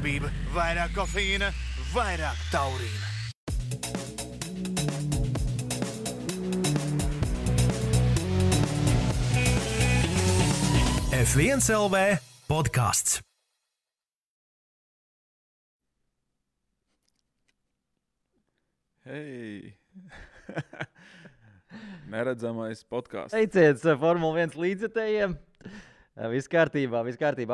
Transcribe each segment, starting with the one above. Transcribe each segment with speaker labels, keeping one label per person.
Speaker 1: Darbība, vairāk kofeīna, vairāk taurīna. F1 LV podcasts.
Speaker 2: Hei! Neredzamais podkāsts.
Speaker 3: Teiciet, Formula 1 līdzjutējiem. Viss kārtībā,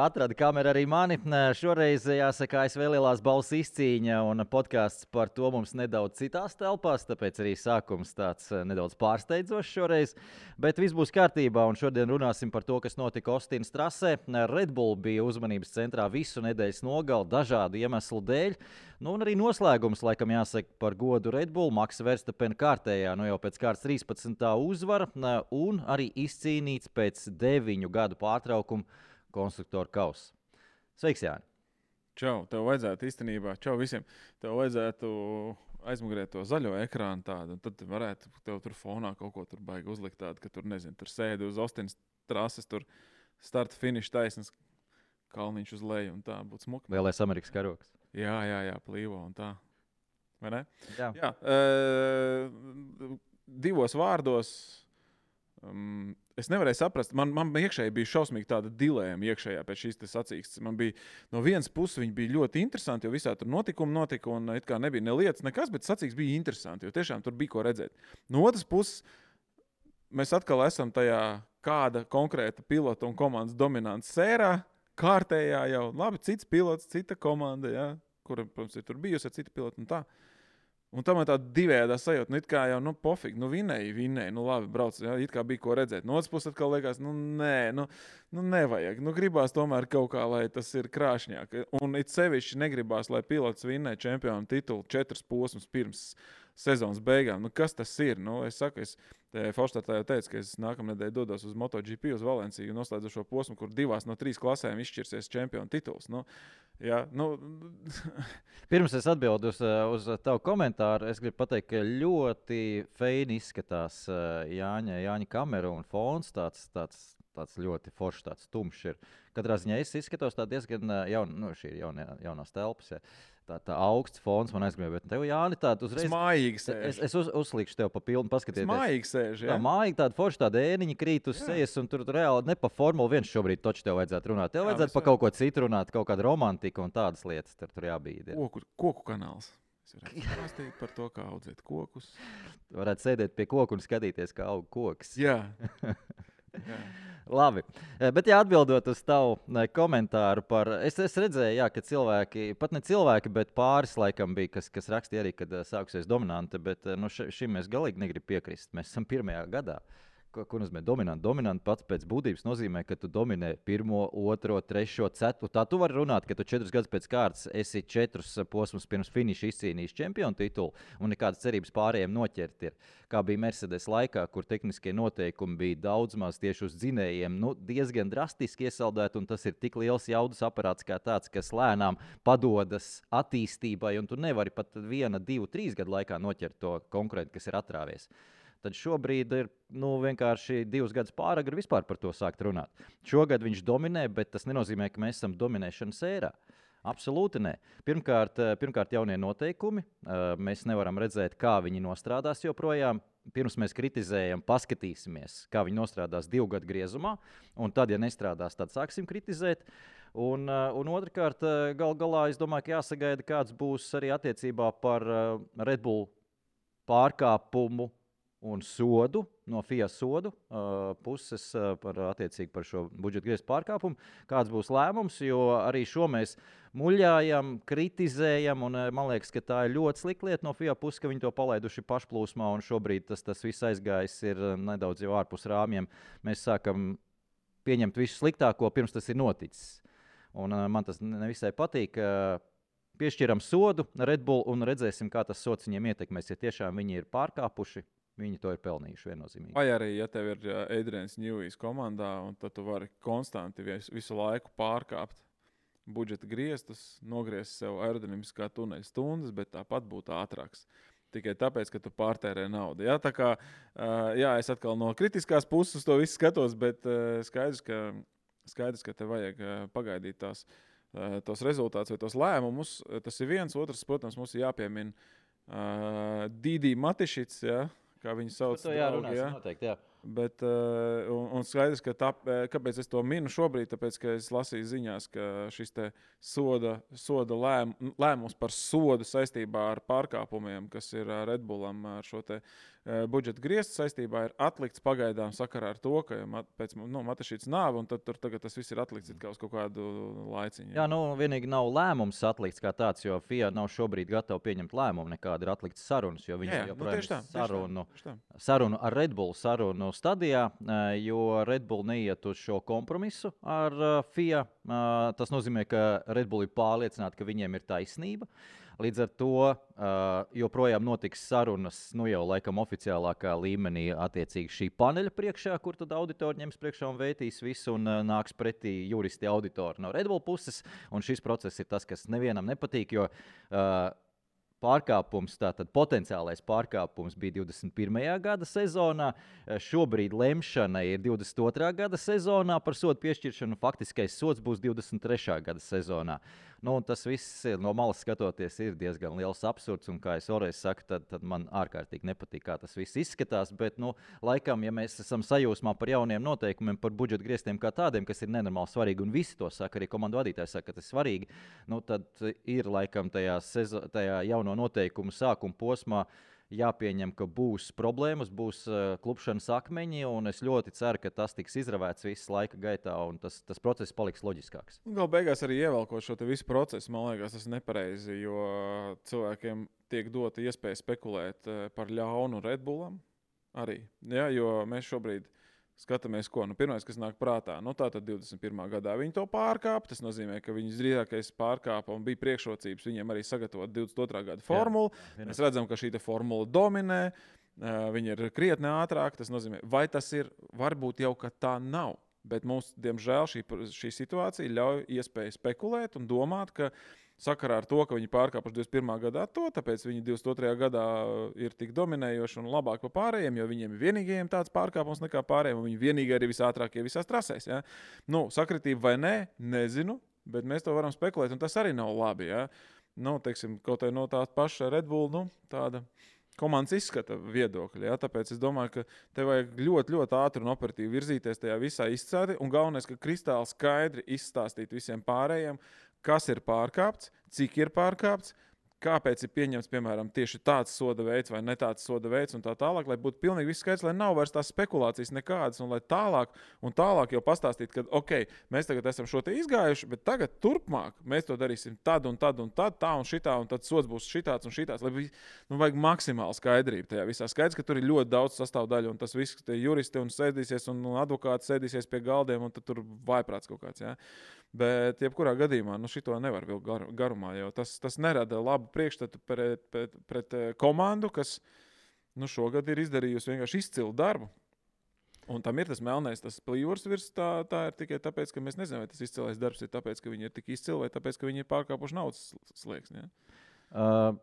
Speaker 3: atrada kameru arī mani. Šoreiz, jāsaka, ASV lielās balvas izcīņa un podkāsts par to mums nedaudz citās telpās, tāpēc arī sākums tāds nedaudz pārsteidzošs šoreiz. Bet viss būs kārtībā un šodien runāsim par to, kas notika Ostinas trasē. Red Bull bija uzmanības centrā visu nedēļas nogali dažādu iemeslu dēļ. Nu, un arī noslēgums, laikam jāsaka par godu Red Bull, Maksa Verstapena kārtējā, jau pēc kārtas 13. uzvara un arī izcīnīts pēc 9 gadu pārtraukuma konstruktoru kausa. Sveiks, Jāni!
Speaker 2: Čau, tev vajadzētu īstenībā, čau visiem, tev vajadzētu aizmugurēt to zaļo ekrānu tādu, un tad varētu tev tur fonā kaut ko tur baigi uzlikt tādu, ka tur, nezinu, tur sēdi uz Ostinas trases, tur starta finiša taisnes, kalniņš uz leju, un tā būtu smuki.
Speaker 3: Lielais Amerikas karoks.
Speaker 2: Jā, plīvo un tā. Vai ne?
Speaker 3: Jā.
Speaker 2: Divos vārdos es nevarēju saprast. Man iekšēji bija šausmīgi tāda dilēma iekšējā pēc šīs sacīkstes. Man bija no vienas puses viņi bija ļoti interesanti, jo visā tur notikumi notika un it kā nebija ne lietas, nekas, bet sacīkstes bija interesanti, jo tiešām tur bija ko redzēt. No otras puses, mēs atkal esam tajā kāda konkrēta pilota un komandas dominants sērā, kārtējā jau, labi, cits pilots, cita komanda, jā, kura, protams, ir tur bijusi ar citu pilotu un tā. Un tam ir tāda divējādā sajūta, it kā jau, pofīgi, vinēji, labi, brauc, jā, it kā bija ko redzēt. No otras puses atkal liekas, nevajag, gribās tomēr kaut kā, lai tas ir krāšņāk. Un it sevišķi negribās, lai pilots vinnē čempionu titulu 4 posmus pirms sezonas beigām. Kas tas ir? Es saku, Forštatā jau teicu, ka es nākamnedēļ dodos uz MotoGP uz Valenciju un noslēdzu šo posmu, kur 2 no 3 klasēm izšķirsies čempionu tituls.
Speaker 3: Pirms es atbildu uz tavu komentāru, es gribu pateikt, ka ļoti feini izskatās Jāņa kamera un fons, tāds ļoti foršs, tāds tumšs ir. Katrā ziņā es izskatos tā diezgan šī ir jaunās telpas, ja. Tā augsts fons man aizgribēja, bet tev, Jāni, tāda uzreiz...
Speaker 2: Mājīgi sēž.
Speaker 3: Es uzlikšu tev pa pilnu paskatieties.
Speaker 2: Mājīgi sēž, jā.
Speaker 3: Tā mājīgi tāda forša, tāda ēniņa krīt uz sejas, un tur reāli ne pa Formula 1 šobrīd toči tev vajadzētu runāt. Tev vajadzētu pa kaut ko citu runāt, kaut kādu romantiku un tādas lietas tur jābīd. Ja.
Speaker 2: Koku kanāls. Es varētu stāstīt par to, kā audzēt kokus.
Speaker 3: Varētu sēdēt pie koku un skatīties, kā aug koks.
Speaker 2: Jā.
Speaker 3: Labi, bet atbildot uz tavu komentāru par... Es redzēju, ka cilvēki, pat ne cilvēki, bet pāris laikam bija, kas rakstīja arī, kad sākusies dominante, bet šim mēs galīgi negrib piekrist. Mēs esam 1. gadā. Ko nozīmē dominanti? Dominanti pats pēc būtības nozīmē, ka tu dominē 1, 2, 3, 4. Tā tu vari runāt, ka tu 4 gadus pēc kārtas esi 4 posmus pirms finiša izcīnījis čempionu titulu un nekādas cerības pārējiem noķert ir. Kā bija Mercedes laikā, kur tehniskie noteikumi bija daudz maz tieši uz dzinējiem, diezgan drastiski iesaldēti, un tas ir tik liels jaudas aparāts kā tāds, kas lēnām padodas attīstībai, un tu nevari pat 1, 2, 3 gadu laikā noķert to konkurentu, kas ir atrāvies. Tad šobrīd ir vienkārši 2 gadus pāragri vispār par to sākt runāt. Šogad viņš dominē, bet tas nenozīmē, ka mēs esam dominēšanas ērā. Absolūti nē. Pirmkārt jaunie noteikumi. Mēs nevaram redzēt, kā viņi nostrādās joprojām. Pirms mēs kritizējam, paskatīsimies, kā viņi nostrādās 2 gadu griezumā. Un tad, ja nestrādās, tad sāksim kritizēt. Un otrkārt, galā, es domāju, ka jāsagaida, kāds būs arī attiecībā par Red Bull pārkāpumu un sodu, no FIA sodu puses par šo budžeta griezta pārkāpumu. Kāds būs lēmums, jo arī šo mēs muļājam, kritizējam, un man liekas, ka tā ir ļoti slikta lieta no FIA puses, ka viņi to palaiduši pašplūsmā, un šobrīd tas viss aizgājis ir nedaudz jau ārpus rāmjiem. Mēs sākam pieņemt visu sliktāko, pirms tas ir noticis. Un man tas nevisai patīk. Piešķiram sodu Red Bull un redzēsim, kā tas sods viņiem ietekmēs, ja tiešām viņi ir pārkāpuši. Viņi to ir pelnījuši viennozīmīgi.
Speaker 2: Vai arī, ja tev ir Adrians Newijs komandā, un tad tu vari konstanti visu laiku pārkāpt budžeta griestus, nogriezt sev aerodinamiskā tuneļa stundas, bet tāpat būt ātrāks. Tikai tāpēc, ka tu pārtērē naudu. Ja? Tā kā, es atkal no kritiskās puses to visu skatos, bet skaidrs, ka tev vajag pagaidīt tās tos rezultātus vai tos lēmumus. Tas ir viens, otrs, protams, mums ir jāpiemina Dīdī Matišits, ja, kā viņu sauc.
Speaker 3: To jārunās, noteikti, jā.
Speaker 2: Bet, un skaidrs, ka kāpēc es to minu šobrīd, tāpēc, ka es lasīju ziņās, ka šis te soda lēmums par sodu saistībā ar pārkāpumiem, kas ir Red Bullam ar šo te budžeta griestu saistībā, ir atlikts pagaidām sakarā ar to, ka pēc Matašītas nāve, un tad tur tagad tas viss ir atlikts uz kaut kādu laiciņu.
Speaker 3: Jā, vienīgi nav lēmums atlikts kā tāds, jo FIA nav šobrīd gatava pieņemt lēmumu, nekāda ir atlikts sarunas, jo viņi joprojām sarunu ar Red Bull sarunu stadijā, jo Red Bull neiet uz šo kompromisu ar FIA. Tas nozīmē, ka Red Bull ir pārliecināti, ka viņiem ir taisnība. Līdz ar to joprojām notiks sarunas, jau laikam oficiālākā līmenī attiecīgi šī paneļa priekšā, kur tad auditori ņems priekšā un vētīs visu un nāks pretī juristi auditori no Red Bull puses. Un šis process ir tas, kas nevienam nepatīk, jo pārkāpums, tātad potenciālais pārkāpums bija 21. gada sezonā. Šobrīd lemšana ir 22. gada sezonā par sodu piešķiršanu. Faktiskais sods būs 23. gada sezonā. Tas viss no malas skatoties ir diezgan liels absurds, un kā es vēlreiz saku, tad man ārkārtīgi nepatīk, kā tas viss izskatās, bet, laikam, ja mēs esam sajūsmā par jauniem noteikumiem, par budžeta griestiem kā tādiem, kas ir nenormāli svarīgi, un visi to saka, arī komandu vadītāji saka, ka tas ir svarīgi, tad ir laikam tajā jauno noteikumu sākuma posmā jāpieņem, ka būs problēmas, būs klupšanas akmeņi, un es ļoti ceru, ka tas tiks izravēts visu laika gaitā, un tas process paliks loģiskāks.
Speaker 2: Galu beigās arī ievelkot šo visu procesu, man liekas, tas ir nepareizi, jo cilvēkiem tiek dota iespēja spekulēt par ļaunu Red Bullam arī. Ja, jo mēs šobrīd skatāmies, ko pirmais, kas nāk prātā. Tātad 21. gadā viņi to pārkāpa. Tas nozīmē, ka viņas drīzākais pārkāpa un bija priekšrocības viņiem arī sagatavot 22. gada formulu. Mēs redzam, ka šī formula dominē. Viņi ir krietni ātrāk. Tas nozīmē, vai tas ir, varbūt jau, ka tā nav. Bet mums, diemžēl, šī situācija ļauj iespēju spekulēt un domāt, ka sakarā ar to, ka viņi pārkāpuši 21. gadā tāpēc viņi 22. gadā ir tik dominējoši un labāk par pārējiem, jo viņiem ir vienīgajiem tāds pārkāpums nekā pārējiem, un viņi vienīgi arī visātrākie visās trasēs. Ja? Sakritība vai nē, nezinu, bet mēs to varam spekulēt, un tas arī nav labi. Ja? Teiksim, kaut arī no tā paša Red Bull, tāda komandas izskata viedokļa. Ja? Tāpēc es domāju, ka te vajag ļoti, ļoti ātri un operatīvi virzīties tajā visā izcēdi, un galvenais, ka kristāli skaidri izstāstīt visiem pārējiem, kas ir pārkāpts, cik ir pārkāpts, kāpēc ir pieņemts, piemēram, tieši tāds soda veids vai ne tāds soda veids un tā tālāk, lai būtu pilnīgi viss skaidrs, lai nav vairs tās spekulācijas nekādas un lai tālāk jau pastāstīt, ka, mēs tagad esam šo te izgājuši, bet tagad turpmāk mēs to darīsim tad un tad un tad, tā un šitā, un tad sods būs šitāds un šitāds, lai vajag maksimāli skaidrību tajā visā. Skaidrs, ka tur ir ļoti daudz sastāvdaļu un tas viss, tie juristi un sēdīsies un advokāti sēdīsies pie galdiem un tad tur vaiprāts kaut kāds, jā. Bet, jebkurā gadījumā, šito nevar vilkt garumā, jo tas nerada labu priekšstatu pret komandu, kas šogad ir izdarījusi vienkārši izcilu darbu. Un tam ir tas melnais, tas plīvurs virs, tā ir tikai tāpēc, ka mēs nezinām, vai tas izcilais darbs ir tāpēc, ka viņi ir tik izcili, vai tāpēc, ka viņi ir pārkāpuši naudas slieksni. Ja?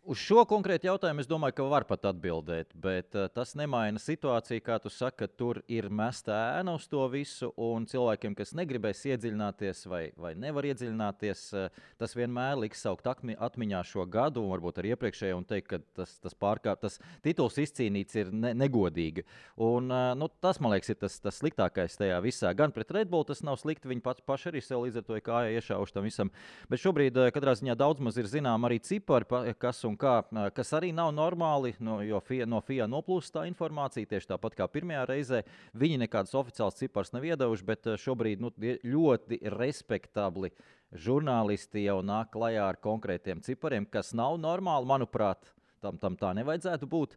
Speaker 3: Uz šo konkrētu jautājumu es domāju, ka var pat atbildēt, bet tas nemaina situāciju, kā tu saki, ka tur ir mesta ēna uz to visu, un cilvēkiem, kas negribēs iedziļināties vai nevar iedziļināties, tas vienmēr liks saukt atmiņā šo gadu, un varbūt arī iepriekšējo, un teikt, ka tas tituls izcīnīts ir negodīgi. Un tas, man liekas, ir tas sliktākais tajā visā. Gan pret Red Bull tas nav slikti, viņi paši arī sev līdz ar to kājā iešauši tam visam. Bet šobrīd, katrā ziņā daudz maz ir zinām arī cipari, kas arī nav normāli, jo no FIA noplūst tā informācija, tieši tāpat kā pirmajā reizē. Viņi nekādas oficiāls cipars nav iedevuši, bet šobrīd ļoti respektabli žurnālisti jau nāk klajā ar konkrētiem cipariem, kas nav normāli, manuprāt. Tam tā nevajadzētu būt,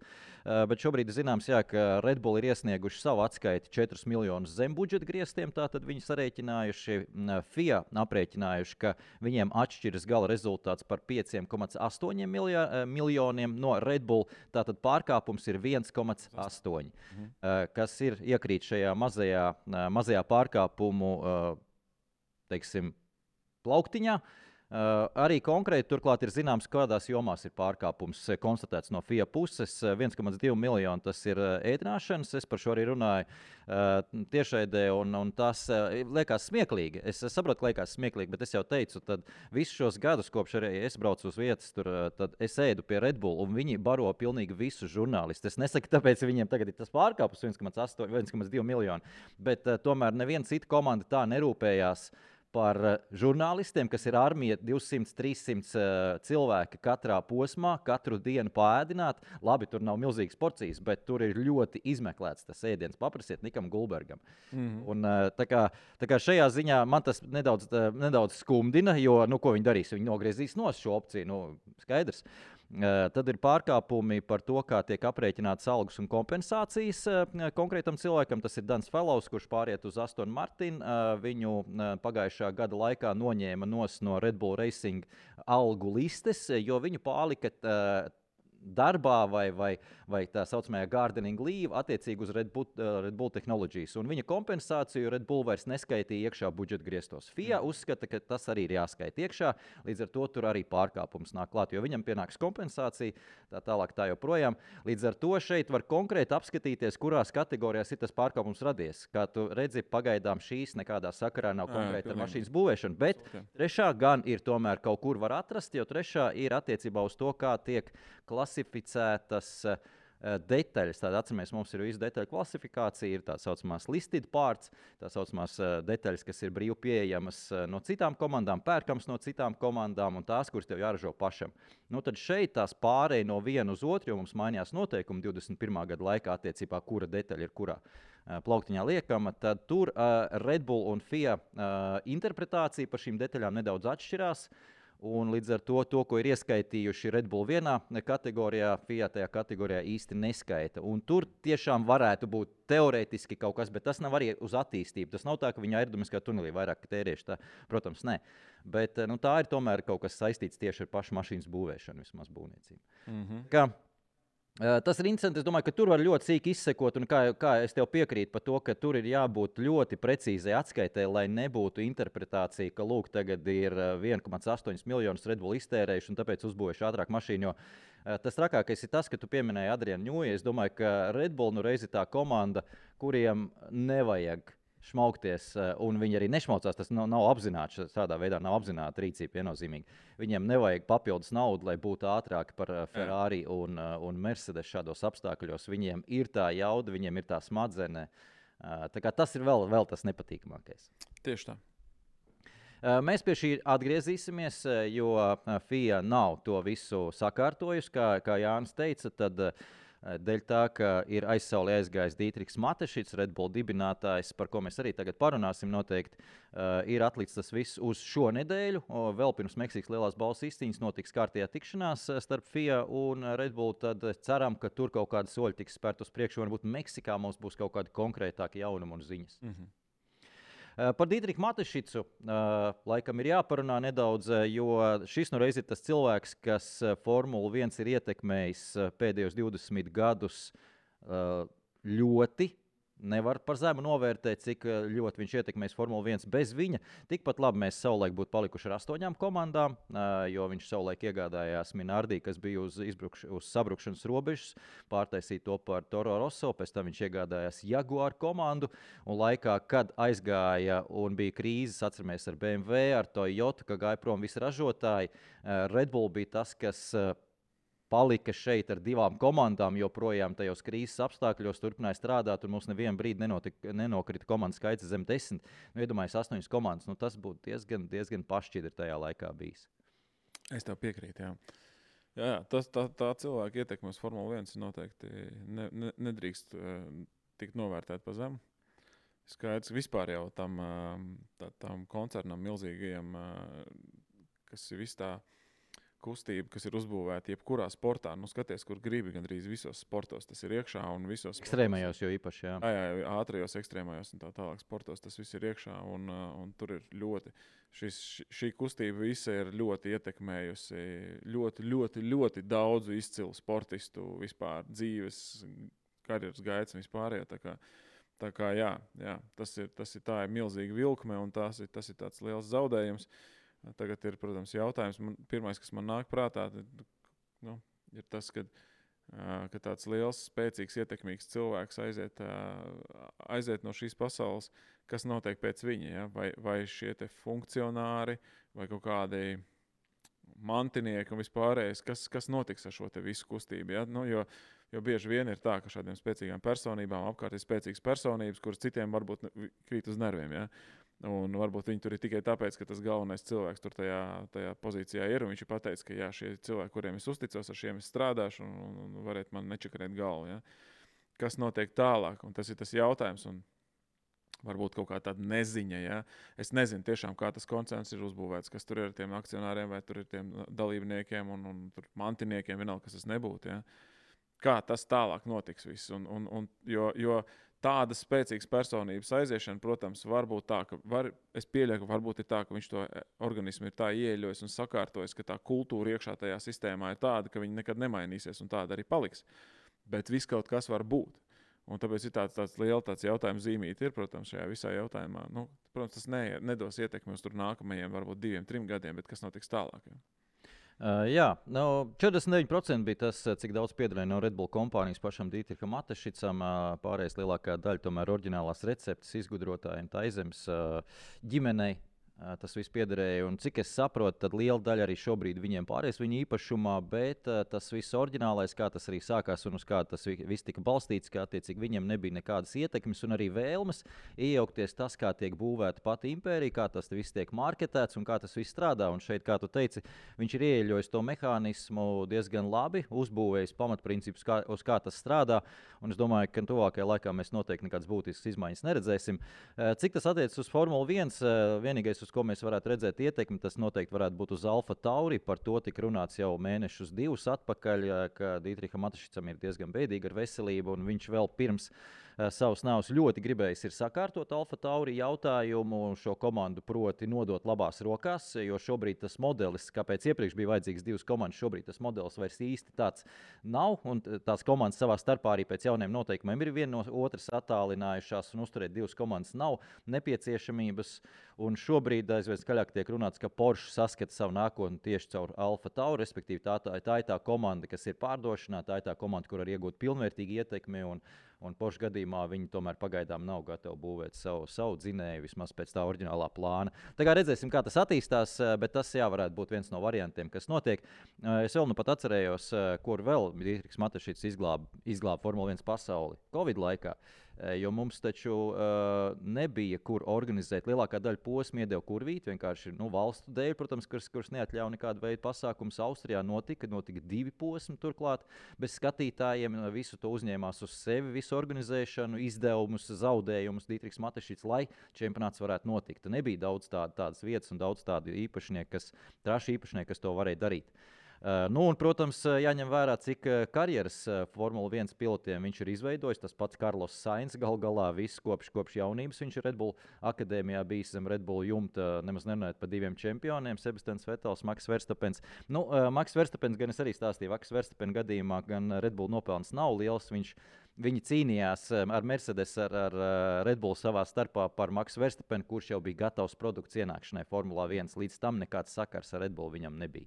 Speaker 3: bet šobrīd zināms, ka Red Bull ir iesnieguši savu atskaiti 4 miljonus zem budžeta griestiem, tātad viņi sarēķinājuši, FIA aprēķinājuši, ka viņiem atšķiras gala rezultāts par 5,8 miljoniem no Red Bull, tātad pārkāpums ir 1,8, kas ir iekrīt šajā mazajā pārkāpumu, teiksim, plauktiņā. Arī konkrēti turklāt ir zināms, kādās jomās ir pārkāpums konstatēts no FIA puses. 1,2 miljoni tas ir ēdināšanas, es par šo arī runāju tiešraidē, un tas liekas smieklīgi. Es saprotu, ka liekas smieklīgi, bet es jau teicu, tad visus šos gadus, kopš arī es braucu uz vietas, tad es ēdu pie Red Bull, un viņi baro pilnīgi visus žurnālistus. Es nesaku, tāpēc viņiem tagad ir tas pārkāpums 1,2 miljoni, bet tomēr neviena cita komanda tā nerūpējās par žurnālistiem, kas ir armija 200-300 cilvēki katrā posmā, katru dienu pāēdināt. Labi, tur nav milzīgas porcijas, bet tur ir ļoti izmeklēts tas ēdiens. Paprasiet Nikam Gulbergam. Un, tā kā šajā ziņā man tas nedaudz skumdina, jo, ko viņi darīs? Viņi nogriezīs nost šo opciju, skaidrs. Tad ir pārkāpumi par to, kā tiek aprēķinātas algas un kompensācijas konkrētam cilvēkam. Tas ir Dans Fellows, kurš pāriet uz Aston Martin. Viņu pagājušā gada laikā noņēma no Red Bull Racing algu listes, jo viņu pārlika darbā vai tā saucamajā gardening leave attiecīgi uz Red Bull Technologies. Un viņa kompensāciju Red Bull vairs neskaitīja iekšā budžeta griestos. FIA uzskata, ka tas arī ir jāskaita iekšā, līdz ar to tur arī pārkāpums nāk klāt, jo viņam pienāks kompensācija, tā tālāk tā joprojām. Līdz ar to šeit var konkrēti apskatīties, kurās kategorijās ir tas pārkāpums radies. Kā tu redzi, pagaidām šīs nekādā sakarā nav konkrēti ar mašīnas būvēšanu, bet trešā gan ir tomēr kaut kur var atrast, jo trešā ir attiecībā uz to, kā tiek klasificētas detaļas. Tātad, atceramies, mums ir visa detaļu klasifikācija, ir tā saucamās listed parts, tā saucamās detaļas, kas ir brīvi pieejamas no citām komandām, pērkams no citām komandām un tās, kuras tev jāražo pašam. Tad šeit tās pārēja no viena uz otru, jo mums mainījās noteikumi 21. gada laikā attiecībā, kura detaļa ir kurā plauktiņā liekama, tad tur Red Bull un FIA interpretācija par šīm detaļām nedaudz atšķirās. Un līdz ar to, ko ir ieskaitījuši Red Bull vienā kategorijā, FIA tajā kategorijā īsti neskaita. Un tur tiešām varētu būt teorētiski kaut kas, bet tas nav arī uz attīstību. Tas nav tā, ka viņi aerodinamiskā tunelī vairāk tērieši. Tā, protams, nē. Bet tā ir tomēr kaut kas saistīts tieši ar pašu mašīnas būvēšanu, vismaz būvniecību. Tas ir interesanti. Es domāju, ka tur var ļoti sīki izsekot, un kā es tev piekrītu par to, ka tur ir jābūt ļoti precīzai atskaitē, lai nebūtu interpretācija, ka lūk, tagad ir 1,8 miljonus Red Bull iztērējuši un tāpēc uzbūvējuši ātrāk mašīnu. Jo tas trakākais ir tas, ka tu pieminēji Adrianu Ņūju. Es domāju, ka Red Bull reiz ir tā komanda, kuriem nevajag šmaukties, un viņi arī nešmaucās. Tas nav apzināts, tādā veidā nav apzināta rīcība viennozīmīgi. Viņiem nevajag papildus naudu, lai būtu ātrāki par Ferrari un Mercedes šādos apstākļos. Viņiem ir tā jauda, viņiem ir tā smadzenē. Tā kā tas ir vēl tas nepatīkamākais.
Speaker 2: Tieši tā.
Speaker 3: Mēs pie šī atgriezīsimies, jo FIA nav to visu sakārtojusi, kā Jānis teica, tad dēļ tā, ka ir aizsaulē aizgājis Dītriks Matešits, Red Bull dibinātājs, par ko mēs arī tagad parunāsim noteikti, ir atlikts tas viss uz šo nedēļu. Vēl pirms Meksikas lielās balvas izcīņas notiks kārtējā tikšanās starp FIA un Red Bull, tad ceram, ka tur kaut kādi soļi tiks spērt uz priekšu, varbūt Meksikā mums būs kaut kādi konkrētāki jaunumi un ziņas. Par Dītriku Matešicu laikam ir jāparunā nedaudz, jo šis reiz ir tas cilvēks, kas Formulu 1 ir ietekmējis pēdējos 20 gadus ļoti. Nevar par zemu novērtēt, cik ļoti viņš ietekmēs Formulu 1 bez viņa. Tikpat labi mēs savulaik būtu palikuši ar 8 komandām, jo viņš savulaik iegādājās Minardi, kas bija uz sabrukšanas robežas, pārtaisīja to par Toro Rosso, pēc tam viņš iegādājās Jaguar komandu, un laikā, kad aizgāja un bija krīzes, atceramies ar BMW, ar Toyota, ka gāja prom visi ražotāji, Red Bull bija tas, kas palika šeit ar 2 komandām, joprojām tajos krīzes apstākļos turpināja strādāt, un mums nevienu brīdi nenokrita komandas skaits zem 10. Iedomājies 8 komandas, tas būtu diezgan pašķidri tajā laikā bijis.
Speaker 2: Es tev piekrītu, jā. Jā, tā cilvēka ietekme uz Formulu 1 noteikti nedrīkst tikt novērtēt pa zemu. Skaidrs, vispār jau tam koncernam milzīgajam, kas ir viss tā kustība, kas ir uzbūvēta jebkurā sportā. Skaties, kur gribi, gandrīz visos sportos tas ir iekšā un visos
Speaker 3: ekstrēmajos jau īpaši, jā.
Speaker 2: Jā, ātrajos ekstrēmajos un tā tālāk sportos tas viss ir iekšā un tur ir ļoti, šī kustība visa ir ļoti ietekmējusi ļoti daudzu izcilu sportistu vispār dzīves, karjeras gaitas un vispārējā. Tā kā jā, tā ir milzīga vilkme un tas ir tāds liels zaudējums. Tagad ir, protams, jautājums. Pirmais, kas man nāk prātā, ir tas, ka tāds liels, spēcīgs, ietekmīgs cilvēks aiziet no šīs pasaules, kas notiek pēc viņa. Ja? Vai šie te funkcionāri, vai kaut kādi mantinieki un vispārējais, kas notiks ar šo te visu kustību. Ja? Jo bieži vien ir tā, ka šādiem spēcīgām personībām apkārt ir spēcīgas personības, kuras citiem varbūt krīt uz nerviem. Ja? Un varbūt viņi tur ir tikai tāpēc, ka tas galvenais cilvēks tur tajā pozīcijā ir. Un viņš ir pateicis, ka jā, šie cilvēki, kuriem es uzticos, ar šiem es strādāšu un varētu man nečakarēt galvu. Ja? Kas notiek tālāk? Un tas ir tas jautājums. Un varbūt kaut kā tāda neziņa. Ja? Es nezinu tiešām, kā tas koncerns ir uzbūvēts, kas tur ir ar tiem akcionāriem vai tur ir tiem dalībniekiem un tur mantiniekiem, vienalga, kas tas nebūtu. Ja? Kā tas tālāk notiks viss. Jo tādas spēcīgas personības aiziešana, protams, var būt tā, es pieļauju, ka varbūt ir tā, ka viņš to organismu ir tā ieļojis un sakārtojis, ka tā kultūra iekšā tajā sistēmā ir tāda, ka viņa nekad nemainīsies un tāda arī paliks. Bet viss kaut kas var būt. Un tāpēc ir tāds liels jautājums zīmīti, protams, šajā visā jautājumā. Protams, tas nedos ietekmi uz nākamajiem, varbūt 2-3 gadiem, bet kas notiks tālāk? Ja?
Speaker 3: 49% bija tas, cik daudz piederēja no Red Bull kompānijas pašam Dietriham Matešicam. Pārējais lielākā daļa tomēr oriģinālās receptes izgudrotājiem Taizemes ģimenei. Tas viss piederēja, un cik es saprotu, tad liela daļa arī šobrīd viņiem pāries viņa īpašumā, bet tas viss oriģinālais, kā tas arī sākās un uz kā tas viss tika balstīts, kā attiecīgi viņiem nebija nekādas ietekmes un arī vēlmes iejaukties tas, kā tiek būvēta pati impērija, kā tas viss tiek marketēts un kā tas viss strādā. Un šeit, kā tu teici, viņš ir ieeļojis to mehānismu diezgan labi, uzbūvējis pamatprincipus, uz kā tas strādā, un es domāju, ka tuvākajā laikā mēs noteikti nekādas būtiskas izmaiņas neredzēsim. Cik tas attiecas uz Formuli 1, vienīgais, uz ko mēs varētu redzēt ietekmi, tas noteikti varētu būt uz Alfa Tauri. Par to tika runāts jau mēnešus 2 atpakaļ, ka Dietriham Matešicam ir diezgan bēdīga ar veselību, un viņš vēl pirms savas nāves ļoti gribējis ir sakārtot Alfa Tauri jautājumu, šo komandu proti nodot labās rokās, jo šobrīd tas modelis, kāpēc iepriekš bija vajadzīgs 2 komandas, šobrīd tas modelis vairs īsti tāds nav, un tās komandas savā starpā arī pēc jauniem noteikumiem ir viena no otras attālinājušās, un uzturēt 2 komandas nav nepieciešamības, un šobrīd aizvien skaļāk tiek runāts, ka Porsche saskata savu nākotni tieši caur Alfa Tauri, respektīvi tā ir tā komanda, kas ir pārdošanā, tā ir tā komanda, kur var iegūt pilnvērtīgu ietekmi, un Porsche gadījumā viņi tomēr pagaidām nav gatavi būvēt savu dzinēju, vismaz pēc tā oriģinālā plāna. Tā kā redzēsim, kā tas attīstās, bet tas varētu būt viens no variantiem, kas notiek. Es vēl nu pat atcerējos, kur vēl Dietrichs Matešits izglāba Formula 1 pasauli Covid laikā. Jo mums taču nebija, kur organizēt. Lielākā daļa posmu iedeva kurvīt, vienkārši valstu dēļ, protams, kuras neatļauj nekādu veidu pasākumus. Austrijā notika 2 posmi turklāt, bez skatītājiem. Visu to uzņēmās uz sevi, visu organizēšanu, izdevumus, zaudējumus Dietrichs Matešits, lai čempionāts varētu notikt. Nebija daudz tādas vietas un daudz tādu īpašnieku, trašu īpašnieku, kas to varēja darīt. Un, protams, jāņem vērā, cik karjeras Formula 1 pilotiem viņš ir izveidojis. Tas pats Carlos Sainz galā viss kopš jaunības. Viņš ir Red Bull akadēmijā bijis zem Red Bull jumta, nemaz nerunājot par 2 čempioniem, Sebastians Vettels, Max Verstappens. Max Verstappens gan es arī stāstīju, Max Verstappen gadījumā gan Red Bull nopelns nav liels. Viņi cīnījās ar Mercedes, ar Red Bull savā starpā par Maxu Verstappenu, kurš jau bija gatavs produkts ienākšanai Formulā 1. Līdz tam nekāds sakars ar Red Bull viņam nebija.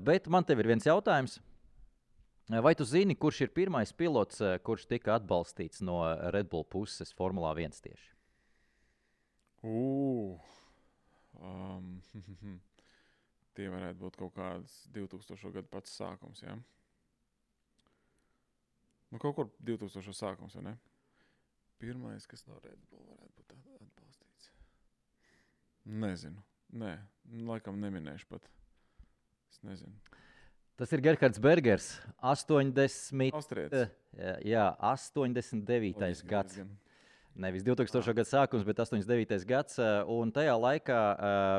Speaker 3: Bet man tev ir viens jautājums. Vai tu zini, kurš ir pirmais pilots, kurš tika atbalstīts no Red Bull puses Formulā 1 tieši?
Speaker 2: Tie varētu būt kaut kāds 2000. Gadu pats sākums, ja? Kaut kur 2000. Sākums, vai ne? Pirmais, kas no Red Bull varētu būt atbalstīts. Nezinu. Nē, laikam neminēšu pat. Es nezinu.
Speaker 3: Tas ir Gerhards Bergers, 80.
Speaker 2: Austrietis.
Speaker 3: Jā, 89. gads. Nevis 2000. Gada sākums, bet 89. gads. Un tajā laikā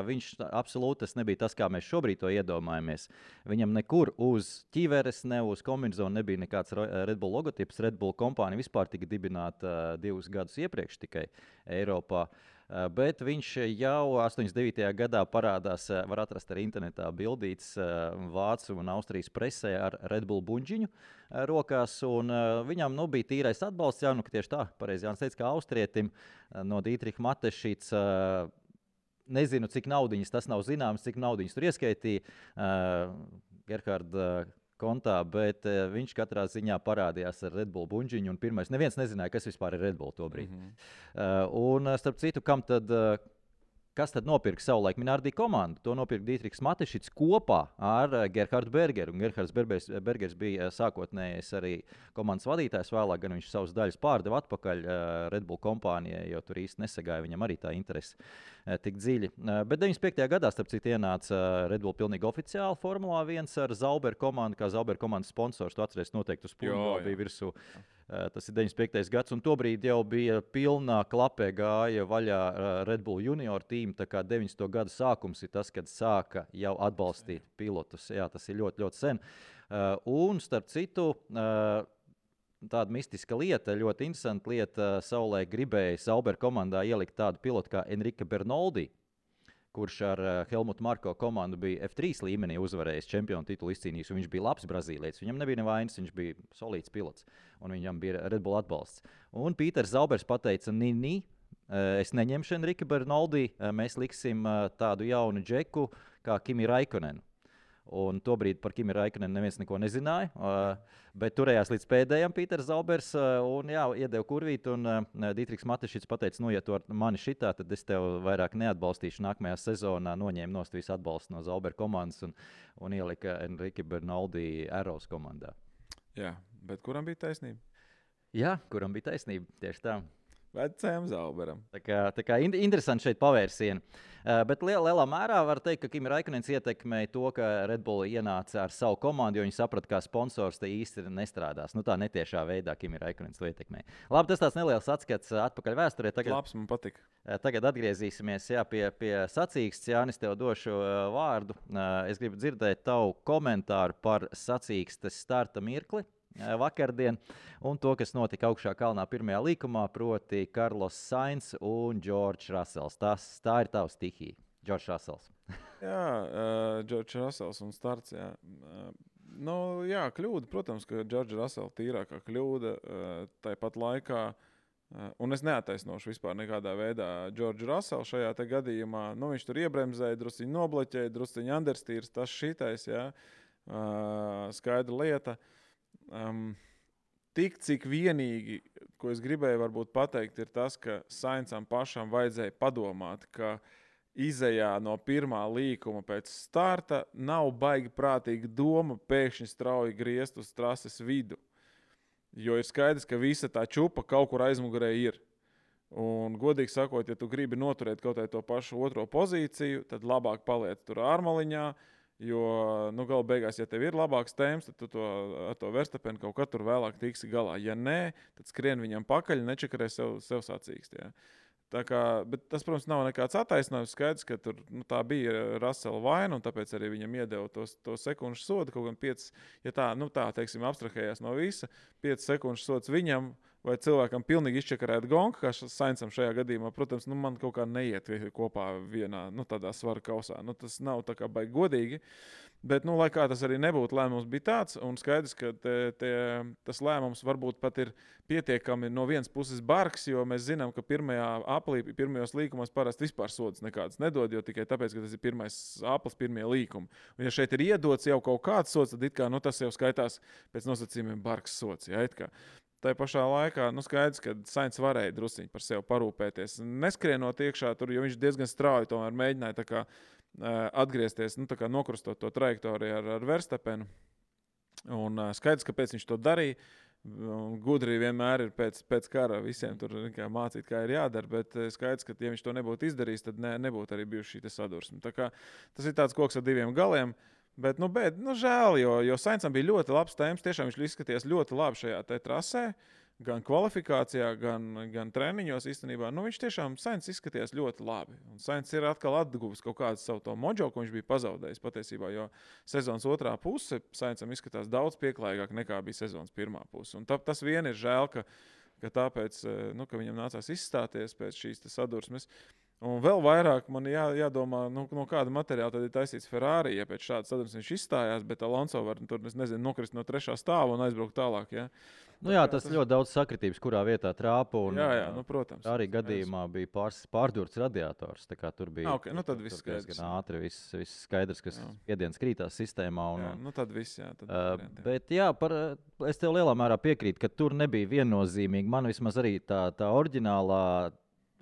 Speaker 3: viņš absolūti nebija tas, kā mēs šobrīd to iedomājamies. Viņam nekur uz ķīveres, ne uz kombinezona nebija nekāds Red Bull logotips. Red Bull kompānija vispār tika dibināta 2 gadus iepriekš tikai Eiropā. Bet viņš jau 89. gadā parādās, var atrast arī internetā bildītes Vācu un Austrijas presē ar Red Bull buņģiņu rokās, un viņam bija tīrais atbalsts, ka tieši tā, pareizi Jānis teica, kā austrietim no Dietricha Matešits Nezinu, cik naudiņas tas nav zināms, cik naudiņas tur ieskaitīja Gerharda kontā, bet viņš katrā ziņā parādījās ar Red Bull buņģiņu. Un pirmais, neviens nezināja, kas vispār ir Red Bull tobrīd. Un starp citu, kas tad nopirka savulaik Minardi komandu? To nopirka Dietrichs Matešics kopā ar Gerhardu Bergeru. Un Gerhards Bergers bija sākotnējais arī komandas vadītājs. Vēlāk gan viņš savus daļas pārdeva atpakaļ Red Bull kompānijai, jo tur īsti nesagāja viņam arī tā interese tik dziļi. Bet 95. gadā, starp citu, ienāca Red Bull pilnīgi oficiāli Formulā 1 ar Zauber komandu, kā Zauber komandas sponsors. Tu atceries noteikti uz pūļu, bija virsū. Tas ir 95. gads, un tobrīd jau bija pilnā klapē gāja vaļā Red Bull junior tīma, tā kā 90. gada sākums ir tas, kad sāka jau atbalstīt pilotus. Jā, tas ir ļoti, ļoti sen. Un, starp citu, tāda mistiska lieta, ļoti interesanta lieta, savulaik gribēja Sauber komandā ielikt tādu pilotu kā Enrique Bernoldi, kurš ar Helmutu Marko komandu bija F3 līmenī uzvarējis čempionu titulu izcīnījis, un viņš bija labs brazīlietis. Viņam nebija nevainas, viņš bija solīts pilots, un viņam bija Red Bull atbalsts. Un Pīters Zaubers pateica, es neņemšu Enrique Bernoldi, mēs liksim tādu jaunu džeku kā Kimi Raikkonenu. Un tobrīd par Kimi Raikkonenu neviens neko nezināja, bet turējās līdz pēdējam Pīters Zaubers un iedeva kurvīt, un Dietrichs Matešics pateica, ja tu ar mani šitā, tad es tev vairāk neatbalstīšu. Nākamajā sezonā noņēma nost visu atbalstu no Zauber komandas un ielika Enrique Bernoldi Arrows komandā.
Speaker 2: Jā, bet kuram bija taisnība?
Speaker 3: Jā, kuram bija taisnība, tieši tā.
Speaker 2: Vecajam Zauberam.
Speaker 3: Tā kā interesanti šeit pavērsieni. Bet lielā mērā var teikt, ka Kimi Raikkonens ietekmēja to, ka Red Bull ienāca ar savu komandu, jo viņi saprata, kā sponsors te īsti nestrādās. Tā netiešā veidā Kimi Raikkonens to ietekmēja. Labi, tas tāds neliels atskats atpakaļ vēsturē.
Speaker 2: Labs, man patika.
Speaker 3: Tagad atgriezīsimies pie sacīkstes. Jānis, tev došu vārdu. Es gribu dzirdēt tavu komentāru par sacīkstes starta mirkli vakardien, un to, kas notika augšā kalnā pirmajā līkumā, proti Carlos Sainz un George Russells. Tā ir tava stihija, George Russells.
Speaker 2: Jā, George Russells un starts, jā. Jā, kļūda, protams, ka George Russell tīrākā kļūda tāpat laikā, un es neataisnošu vispār nekādā veidā George Russell šajā te gadījumā. Viņš tur iebremzēja, drusciņi nobloķēja, drusciņi understīrs, tas šitais, jā, skaidra lieta. Tik cik vienīgi, ko es gribēju varbūt pateikt, ir tas, ka Sainzam pašam vajadzēja padomāt, ka izejā no pirmā līkuma pēc starta nav baigi prātīga doma pēkšņi strauji griezt uz trases vidu. Jo ir skaidrs, ka visa tā čupa kaut kur aizmugurē ir. Un, godīgi sakot, ja tu gribi noturēt kaut to pašu otro pozīciju, tad labāk paliec tur ārmaliņā. Jo, gala beigās, ja tev ir labāks temps, tad tu ar to Verstapenu kaut kā tur vēlāk tiksi galā. Ja nē, tad skrien viņam pakaļ, nečakarē sev sacīkst. Ja. Bet tas, protams, nav nekāds attaisnojums. Skaidrs, ka tur, tā bija Russella vaina, un tāpēc arī viņam iedeva to sekundžu sodu. Kaut gan 5, ja tā teiksim, abstrahējās no visa, 5 sekundžu sods viņam, vai cilvēkam pilnīgi izčakarēt gonku, kā Sainzam šajā gadījumā, protams, man kaut kā neiet kopā vienā, tādā svara kausā. Tas nav tā kā baigi godīgi, bet, lai kā tas arī nebūtu, lēmums bija tāds, un skaidrs, ka tas lēmums varbūt pat ir pietiekami no vienas puses bargs, jo mēs zinām, ka pirmajos līkumos parasti vispār sodas nekādas nedod, jo tikai tāpēc, ka tas ir pirmais aplis, pirmie līkumi. Un ja šeit ir iedots jau kaut kāds sods, tad it kā, tas jau skaitās pēc nosacījumiem bargs sods, ja, it kā. Tā pašā laikā skaidrs, ka Sainz varēja drusciņi par sevi parūpēties. Neskrienot iekšā tur, jo viņš diezgan strauji tomēr mēģināja tā kā, atgriezties, tā kā nokrustot to trajektoriju ar Verstapenu. Un skaidrs, kāpēc viņš to darīja. Gudri vienmēr ir pēc kara visiem tur mācīt, kā ir jādara, bet skaidrs, ka ja viņš to nebūtu izdarījis, tad nebūtu arī bijuši šī sadursme. Tā kā tas ir tāds koks ar diviem galiem. Bet žēl, jo Sainzam bija ļoti labs temps. Tiešām viņš izskatījās ļoti labi šajā trasē, gan kvalifikācijā, gan treniņos īstenībā. Viņš tiešām Sainz izskatījās ļoti labi. Un Sainz ir atkal atguvis kaut kādu savu to mojo, ko viņš bija pazaudējis patiesībā, jo sezonas otrā puse Sainzam izskatās daudz pieklājīgāk nekā bija sezonas pirmā puse. Un tas vien ir žēl, ka tāpēc, ka viņam nācās izstāties pēc šīs sadursmes. Un vēl vairāk man jādomā, no kāda materiāla tad ir taisīts Ferrari. Ja pēc šādas sadursmes viņš izstājās, bet Alonso var tur, nokrist no 3. stāva un aizbraukt tālāk. Ja?
Speaker 3: Tas ļoti daudz sakritības, kurā vietā trāpa.
Speaker 2: Jā, protams.
Speaker 3: Arī gadījumā bija pārdurts radiators. Tur bija
Speaker 2: tad viss skaidrs.
Speaker 3: Gan ātri, viss skaidrs, kas spiediens krītās sistēmā.
Speaker 2: Tad viss,
Speaker 3: bet es tev lielā mērā piekrītu, ka tur nebija viennozīmīgi. Man vismaz arī tā oriģinālā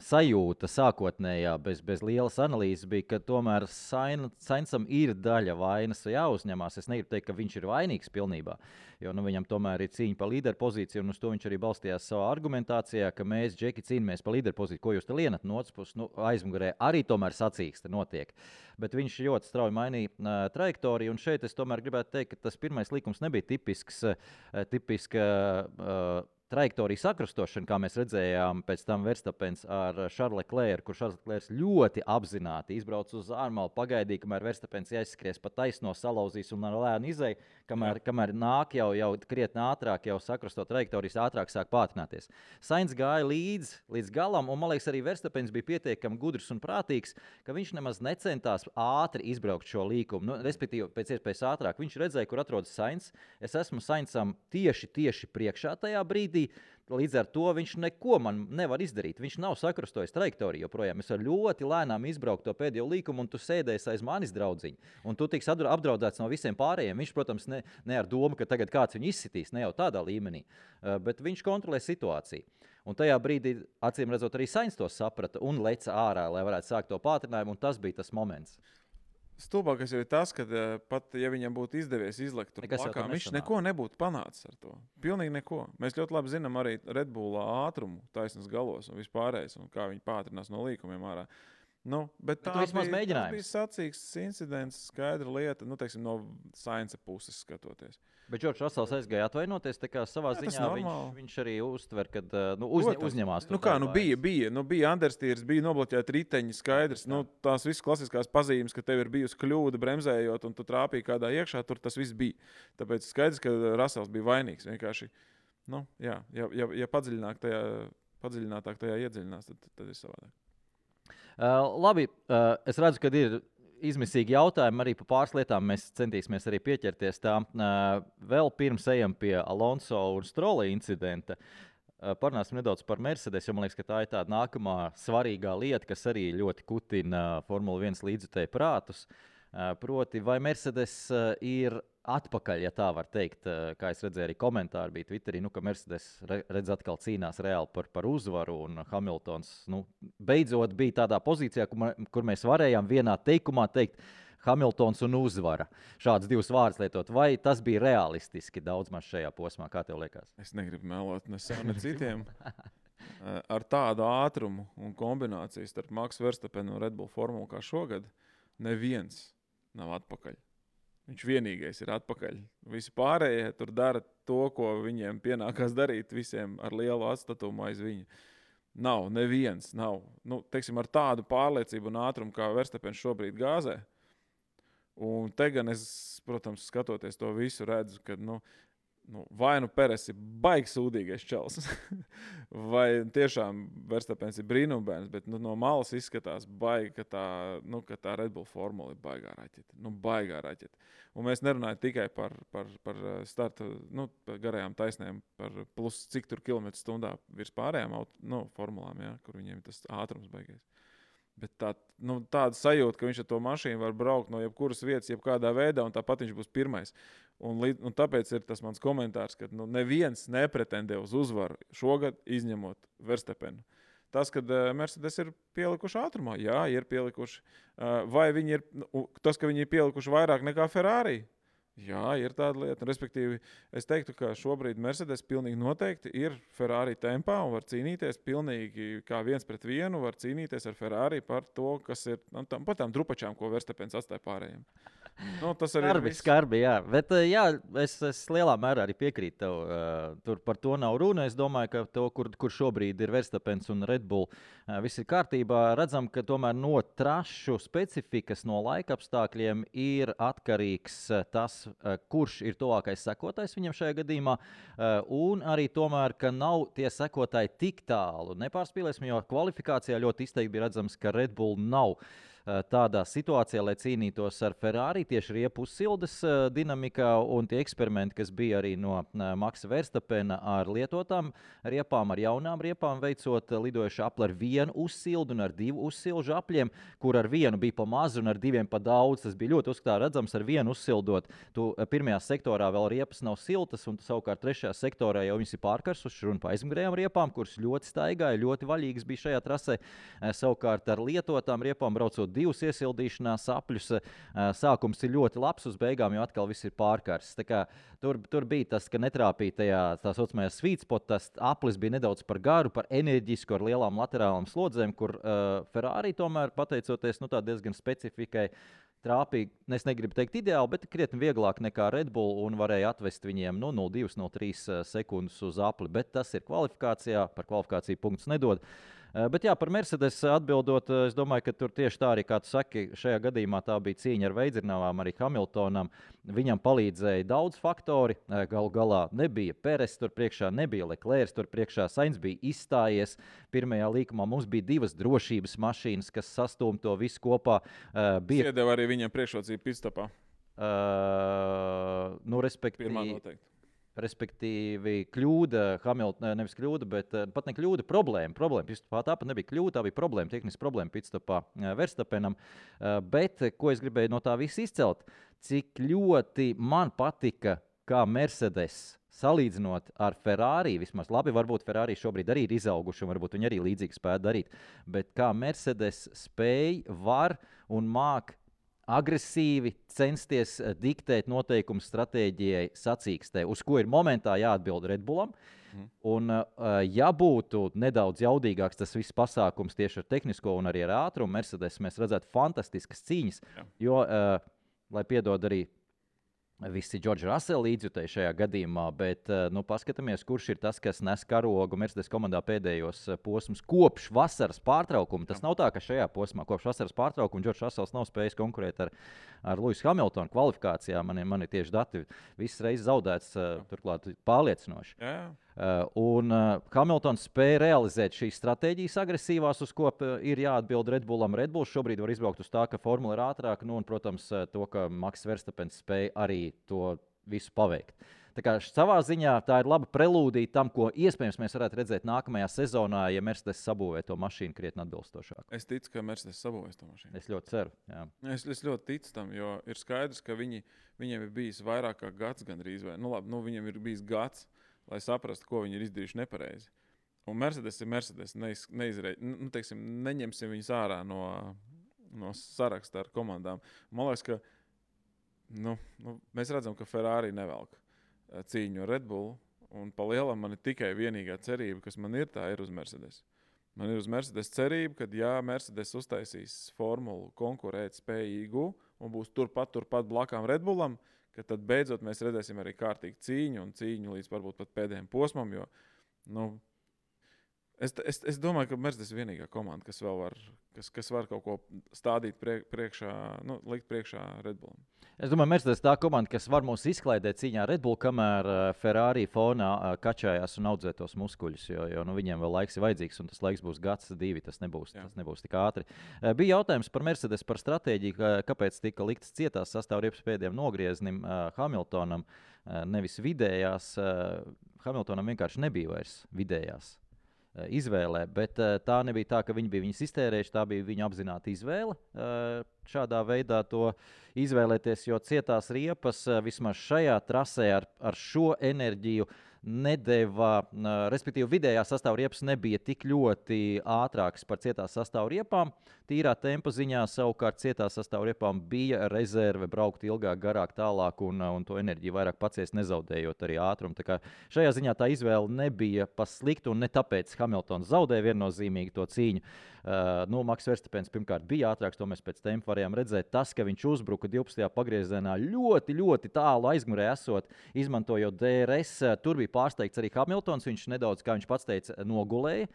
Speaker 3: sajūta sākotnējā, bez lielas analīzes, bija, ka tomēr Sainzam ir daļa vainas jāuzņemās. Es negribu teikt, ka viņš ir vainīgs pilnībā, jo viņam tomēr ir cīņa par līderu pozīciju, un uz to viņš arī balstījās savā argumentācijā, ka mēs, Džeki, cīnāmies par līderu pozīciju. Ko jūs te lienat no otras puses? Aizmugurē arī tomēr sacīkste notiek. Bet viņš ļoti strauji mainīja trajektoriju, un šeit es tomēr gribētu teikt, ka tas pirmais likums nebija tipisks trajektoriju sakrustošana, kā mēs redzējām pēc tam Verstappens ar Charlesu Leclercu, kur Charles Leclerc ļoti apzināti izbrauc uz ārmalu, pagaidīja, kamēr Verstappens aizskries pa taisno, salauzīs un ar lēnu izēju, kamēr nāk jau krietni ātrāk, jau sakrusto trajektorijas ātrāk sāk pātrināties. Sainz gāja līdz galam, un man liekas arī Verstappens bija pietiekami gudrs un prātīgs, ka viņš nemaz necentās ātri izbraukt šo līkumu, respektīvi pēc iespējas ātrāk. Viņš redzēja, kur atrodas Sainz. Es esmu Sainzam tieši priekšā tajā brīdī. Līdz ar to viņš neko man nevar izdarīt. Viņš nav sakrustojis trajektoriju joprojām. Es varu ļoti lēnām izbraukt to pēdējo līkumu, un tu sēdēsi aiz manis, draudziņ. Un tu tiks apdraudēts no visiem pārējiem. Viņš, protams, ne ar domu, ka tagad kāds viņu izsitīs, ne jau tādā līmenī, bet viņš kontrolē situāciju. Un tajā brīdī, acīm redzot, arī Sainz to saprata un leca ārā, lai varētu sākt to pātrinājumu, un tas bija tas moments.
Speaker 2: Stulbākais jau ir tas, ka pat ja viņam būtu izdevies izlekt tur plakā, viņš neko nebūtu panācis ar to. Pilnīgi neko. Mēs ļoti labi zinām arī Red Bullā ātrumu taisnas galos un vispārējais, un kā viņi pātrinās no līkumiem ārā. Bet tas bija sacīks incidents, skaidra lieta, teiksim, no Sainza puses skatoties.
Speaker 3: Bet Džordžs Rasels aizgāja atvainoties, tā kā savā ziņā viņš arī uztver, kad uzņemās to.
Speaker 2: Bija understeers, bija nobloķēti riteņi, skaidrs. Tās visas klasiskās pazīmes, ka tev ir bijusi kļūda bremzējot un tu trāpīji kādā iekšā, tur tas viss bija. Tāpēc skaidrs, ka Rasels bija vainīgs. Vienkārši, ja padziļinātāk tajā iedziļinās, tad ir savādāk.
Speaker 3: Labi, es redzu, ka ir izmisīgi jautājumi arī par pāris lietām. Mēs centīsimies arī pieķerties tām. Vēl pirms ejam pie Alonso un Strolla incidenta. Parunāsim nedaudz par Mercedes, jo man liekas, ka tā ir tāda nākamā svarīgā lieta, kas arī ļoti kutina Formula 1 līdzjutēju prātus. Proti, vai Mercedes ir atpakaļ, ja tā var teikt, kā es redzēju arī komentāri bija Twitterī, ka Mercedes redz atkal cīnās reāli par uzvaru, un Hamiltons beidzot bija tādā pozīcijā, kur mēs varējām vienā teikumā teikt Hamiltons un uzvara. Šāds divus vārdus lietot. Vai tas bija realistiski daudz maz šajā posmā? Kā tev liekas?
Speaker 2: Es negribu melot ne sev, ne citiem. Ar tādu ātrumu un kombināciju starp Maxu Verstappenu un Red Bull formulu kā šogad, neviens nav atpakaļ. Viņš vienīgais ir atpakaļ. Visi pārējie tur dara to, ko viņiem pienākās darīt, visiem ar lielu atstatumu aiz viņa. Neviens nav. Teiksim, ar tādu pārliecību un ātrumu, kā Verstappens šobrīd gāzē. Un te gan es, protams, skatoties to visu, redzu, ka vai Peres ir baigi sūdīgais čels, vai tiešām Verstappens ir brīnumbērns, bet no malas izskatās baigi, ka tā Red Bull formula ir baigā raķete. Un mēs nerunājam tikai par starta, par garajām taisnēm, par plus cik tur kilometru stundā virs pārējām formulām, kur viņiem ir tas ātrums baigais. Bet tāda sajūta, ka viņš ar to mašīnu var braukt no jebkuras vietas, jebkādā veidā, un tāpat viņš būs pirmais. Un tāpēc ir tas mans komentārs, ka neviens nepretendē uz uzvaru šogad, izņemot Verstappenu. Tas, kad Mercedes ir pielikuši ātrumā, jā, ir pielikuši. Vai viņi tas, ka viņi ir pielikuši vairāk nekā Ferrari? Jā, ir tāda lieta. Respektīvi, es teiktu, ka šobrīd Mercedes pilnīgi noteikti ir Ferrari tempā un var cīnīties pilnīgi kā 1-1, var cīnīties ar Ferrari par to, kas ir par tām drupačām, ko Verstappens atstāja pārējiem. Tas arī ir viss.
Speaker 3: Skarbi, jā. Bet jā, es lielā mērā arī piekrītu tev. Tur par to nav runa. Es domāju, ka to, kur šobrīd ir Verstapens un Red Bull, viss ir kārtībā. Redzam, ka tomēr no trašu specifikas, no laika apstākļiem ir atkarīgs tas, kurš ir tuvākais sekotājs viņam šajā gadījumā. Un arī tomēr, ka nav tie sekotāji tik tālu. Nepārspīlēsim, jo kvalifikācijā ļoti izteikti bija redzams, ka Red Bull nav tādā situācijā, lai cīnītos ar Ferrari tieši riepu uzsildes dinamikā, un tie eksperimenti, kas bija arī no Maksa Verstapena ar lietotām riepām, ar jaunām riepām veicot lidojuši apli ar vienu uzsildu un ar 2 uzsilžu apļiem, kur ar vienu bija pa mazu un ar 2 pa daudz. Tas bija ļoti uzskatā redzams, ar vienu uzsildot. Tu pirmajā sektorā vēl riepas nav siltas, un savukārt trešajā sektorā jau viņas ir pārkarsušas, runa pa aizmugurējām riepām, kuras ļoti staigāja, ļoti vaļīgas bija šajā trasē. Savukārt ar lietotām riepām braucot 2 iesildīšanās apļus. Sākums ir ļoti labs, uz beigām jau atkal viss ir pārkarsts. Tur bija tas, ka netrāpīja tajā tā saucamajā sweet spot, tas aplis bija nedaudz par garu, par enerģisku, ar lielām laterālām slodzēm, kur Ferrari tomēr, pateicoties diezgan specifikai, trāpīgi, es negribu teikt ideāli, bet krietni vieglāk nekā Red Bull un varēja atvest viņiem 0,2-0,3 sekundes uz apli. Bet tas ir kvalifikācijā, par kvalifikāciju punktus nedod. Bet jā, par Mercedes atbildot, es domāju, ka tur tieši tā arī, kā tu saki, šajā gadījumā tā bija cīņa ar Veidzirnavām, arī Hamiltonam. Viņam palīdzēja daudz faktori. Galu galā nebija Peres tur priekšā, nebija Leclerc tur priekšā. Sainz bija izstājies pirmajā līkumā. Mums bija 2 drošības mašīnas, kas sastūma to visu kopā.
Speaker 2: Iedeva arī viņam priekšrocību pitstopā.
Speaker 3: Respektīvi, kļūda, nevis kļūda, bet pat ne kļūda, problēma. Tāpat nebija kļūda, tā bija problēma, tehniska problēma pitstopā Verstapenam. Bet, ko es gribēju no tā visu izcelt, cik ļoti man patika, kā Mercedes salīdzinot ar Ferrari, vismaz labi, varbūt Ferrari šobrīd arī ir izauguši, un varbūt viņi arī līdzīgi spēja darīt, bet kā Mercedes spēj, var un māk agresīvi censties diktēt noteikumus stratēģijai sacīkstē, uz ko ir momentā jāatbild Red Bullam. Un, ja būtu nedaudz jaudīgāks tas viss pasākums tieši ar tehnisko un arī ar ātrumu, Mercedes mēs redzētu fantastiskas cīņas, jo, lai piedod arī visi George Russell līdzjutēji šajā gadījumā, bet paskatāmies, kurš ir tas, kas nes karogu Mercedes komandā pēdējos posmus kopš vasaras pārtraukuma. Tas nav tā, ka šajā posmā kopš vasaras pārtraukuma George Russells nav spējis konkurēt ar Lewisu Hamiltonu kvalifikācijā. Man ir tieši dati visas reizes zaudēts, turklāt pārliecinoši. Un Hamiltons spēja realizēt šīs stratēģijas agresīvās, uz ko ir jāatbild Red Bullam. Red Bulls šobrīd var izbraukt uz tā, ka formula ir ātrāka, un, protams, to, ka Maks Verstapens spēja arī to visu paveikt. Tā kā savā ziņā tā ir laba prelūdija tam, ko iespējams mēs varētu redzēt nākamajā sezonā, ja Mercedes sabūvē to mašīnu krietni atbilstošāk.
Speaker 2: Es ticu, ka Mercedes sabūvēs to mašīnu.
Speaker 3: Es ļoti ceru. Jā.
Speaker 2: Es ļoti ticu tam, jo ir skaidrs, ka viņiem ir bijis vairāk kā gads gandrīz. Viņiem ir bijis gads, lai saprastu, ko viņi ir izdarījuši nepareizi. Un Mercedes ir Mercedes. Neņemsim viņus ārā no saraksta ar komandām. Man liekas, ka mēs redzam, ka Ferrari nevelk cīņu ar Red Bull. Un pa lielam man ir tikai vienīgā cerība, kas man ir, tā ir uz Mercedes. Man ir uz Mercedes cerība, ka ja Mercedes uztaisīs formulu konkurēt spējīgu un būs turpat blakām Red Bullam, ka tad beidzot mēs redzēsim arī kārtīgu cīņu līdz varbūt pat pēdējiem posmam, jo, es domāju, ka Mercedes ir vienīgā komanda, kas vēl var kaut ko stādīt priekšā, likt priekšā Red Bullam.
Speaker 3: Es domāju, Mercedes tā komanda, kas var mūs izklaidēt cīņā Red Bull, kamēr Ferrari fonā kačājās un audzē tos muskuļus, jo viņiem vēl laiks ir vajadzīgs, un tas laiks būs gads, 2, tas nebūs tik ātri. Bija jautājums par Mercedes, par stratēģiju, kāpēc tika liktas cietās sastāvriepas pēdējiem nogrieznim Hamiltonam, nevis vidējās. Hamiltonam vienkārši nebija vairs vidējās izvēlē, bet tā nebija tā, ka viņi bija viņas iztērējuši, tā bija viņa apzināta izvēle šādā veidā to izvēlēties, jo cietās riepas vismaz šajā trasē ar šo enerģiju nedeva, respektīvi vidējā sastāvriepas nebija tik ļoti ātrākas par cietās sastāvriepām. Tīrā tempa ziņā savukārt cietās sastāvriepām bija rezerve braukt ilgāk, garāk, tālāk un to enerģiju vairāk paciest, nezaudējot arī ātrumu. Tā kā šajā ziņā tā izvēle nebija pa sliktu un ne tāpēc Hamiltons zaudēja viennozīmīgi to cīņu. Maks Verstapens pirmkārt bija ātrāks, to mēs pēc tempa varējām redzēt, tas, ka viņš uzbruka 12. pagriezienā ļoti, ļoti tālu aizmugurē esot, izmantojot DRS. Tur bija pārsteigts arī Hamiltons. Viņš nedaudz, kā viņš pats teica, nogulēja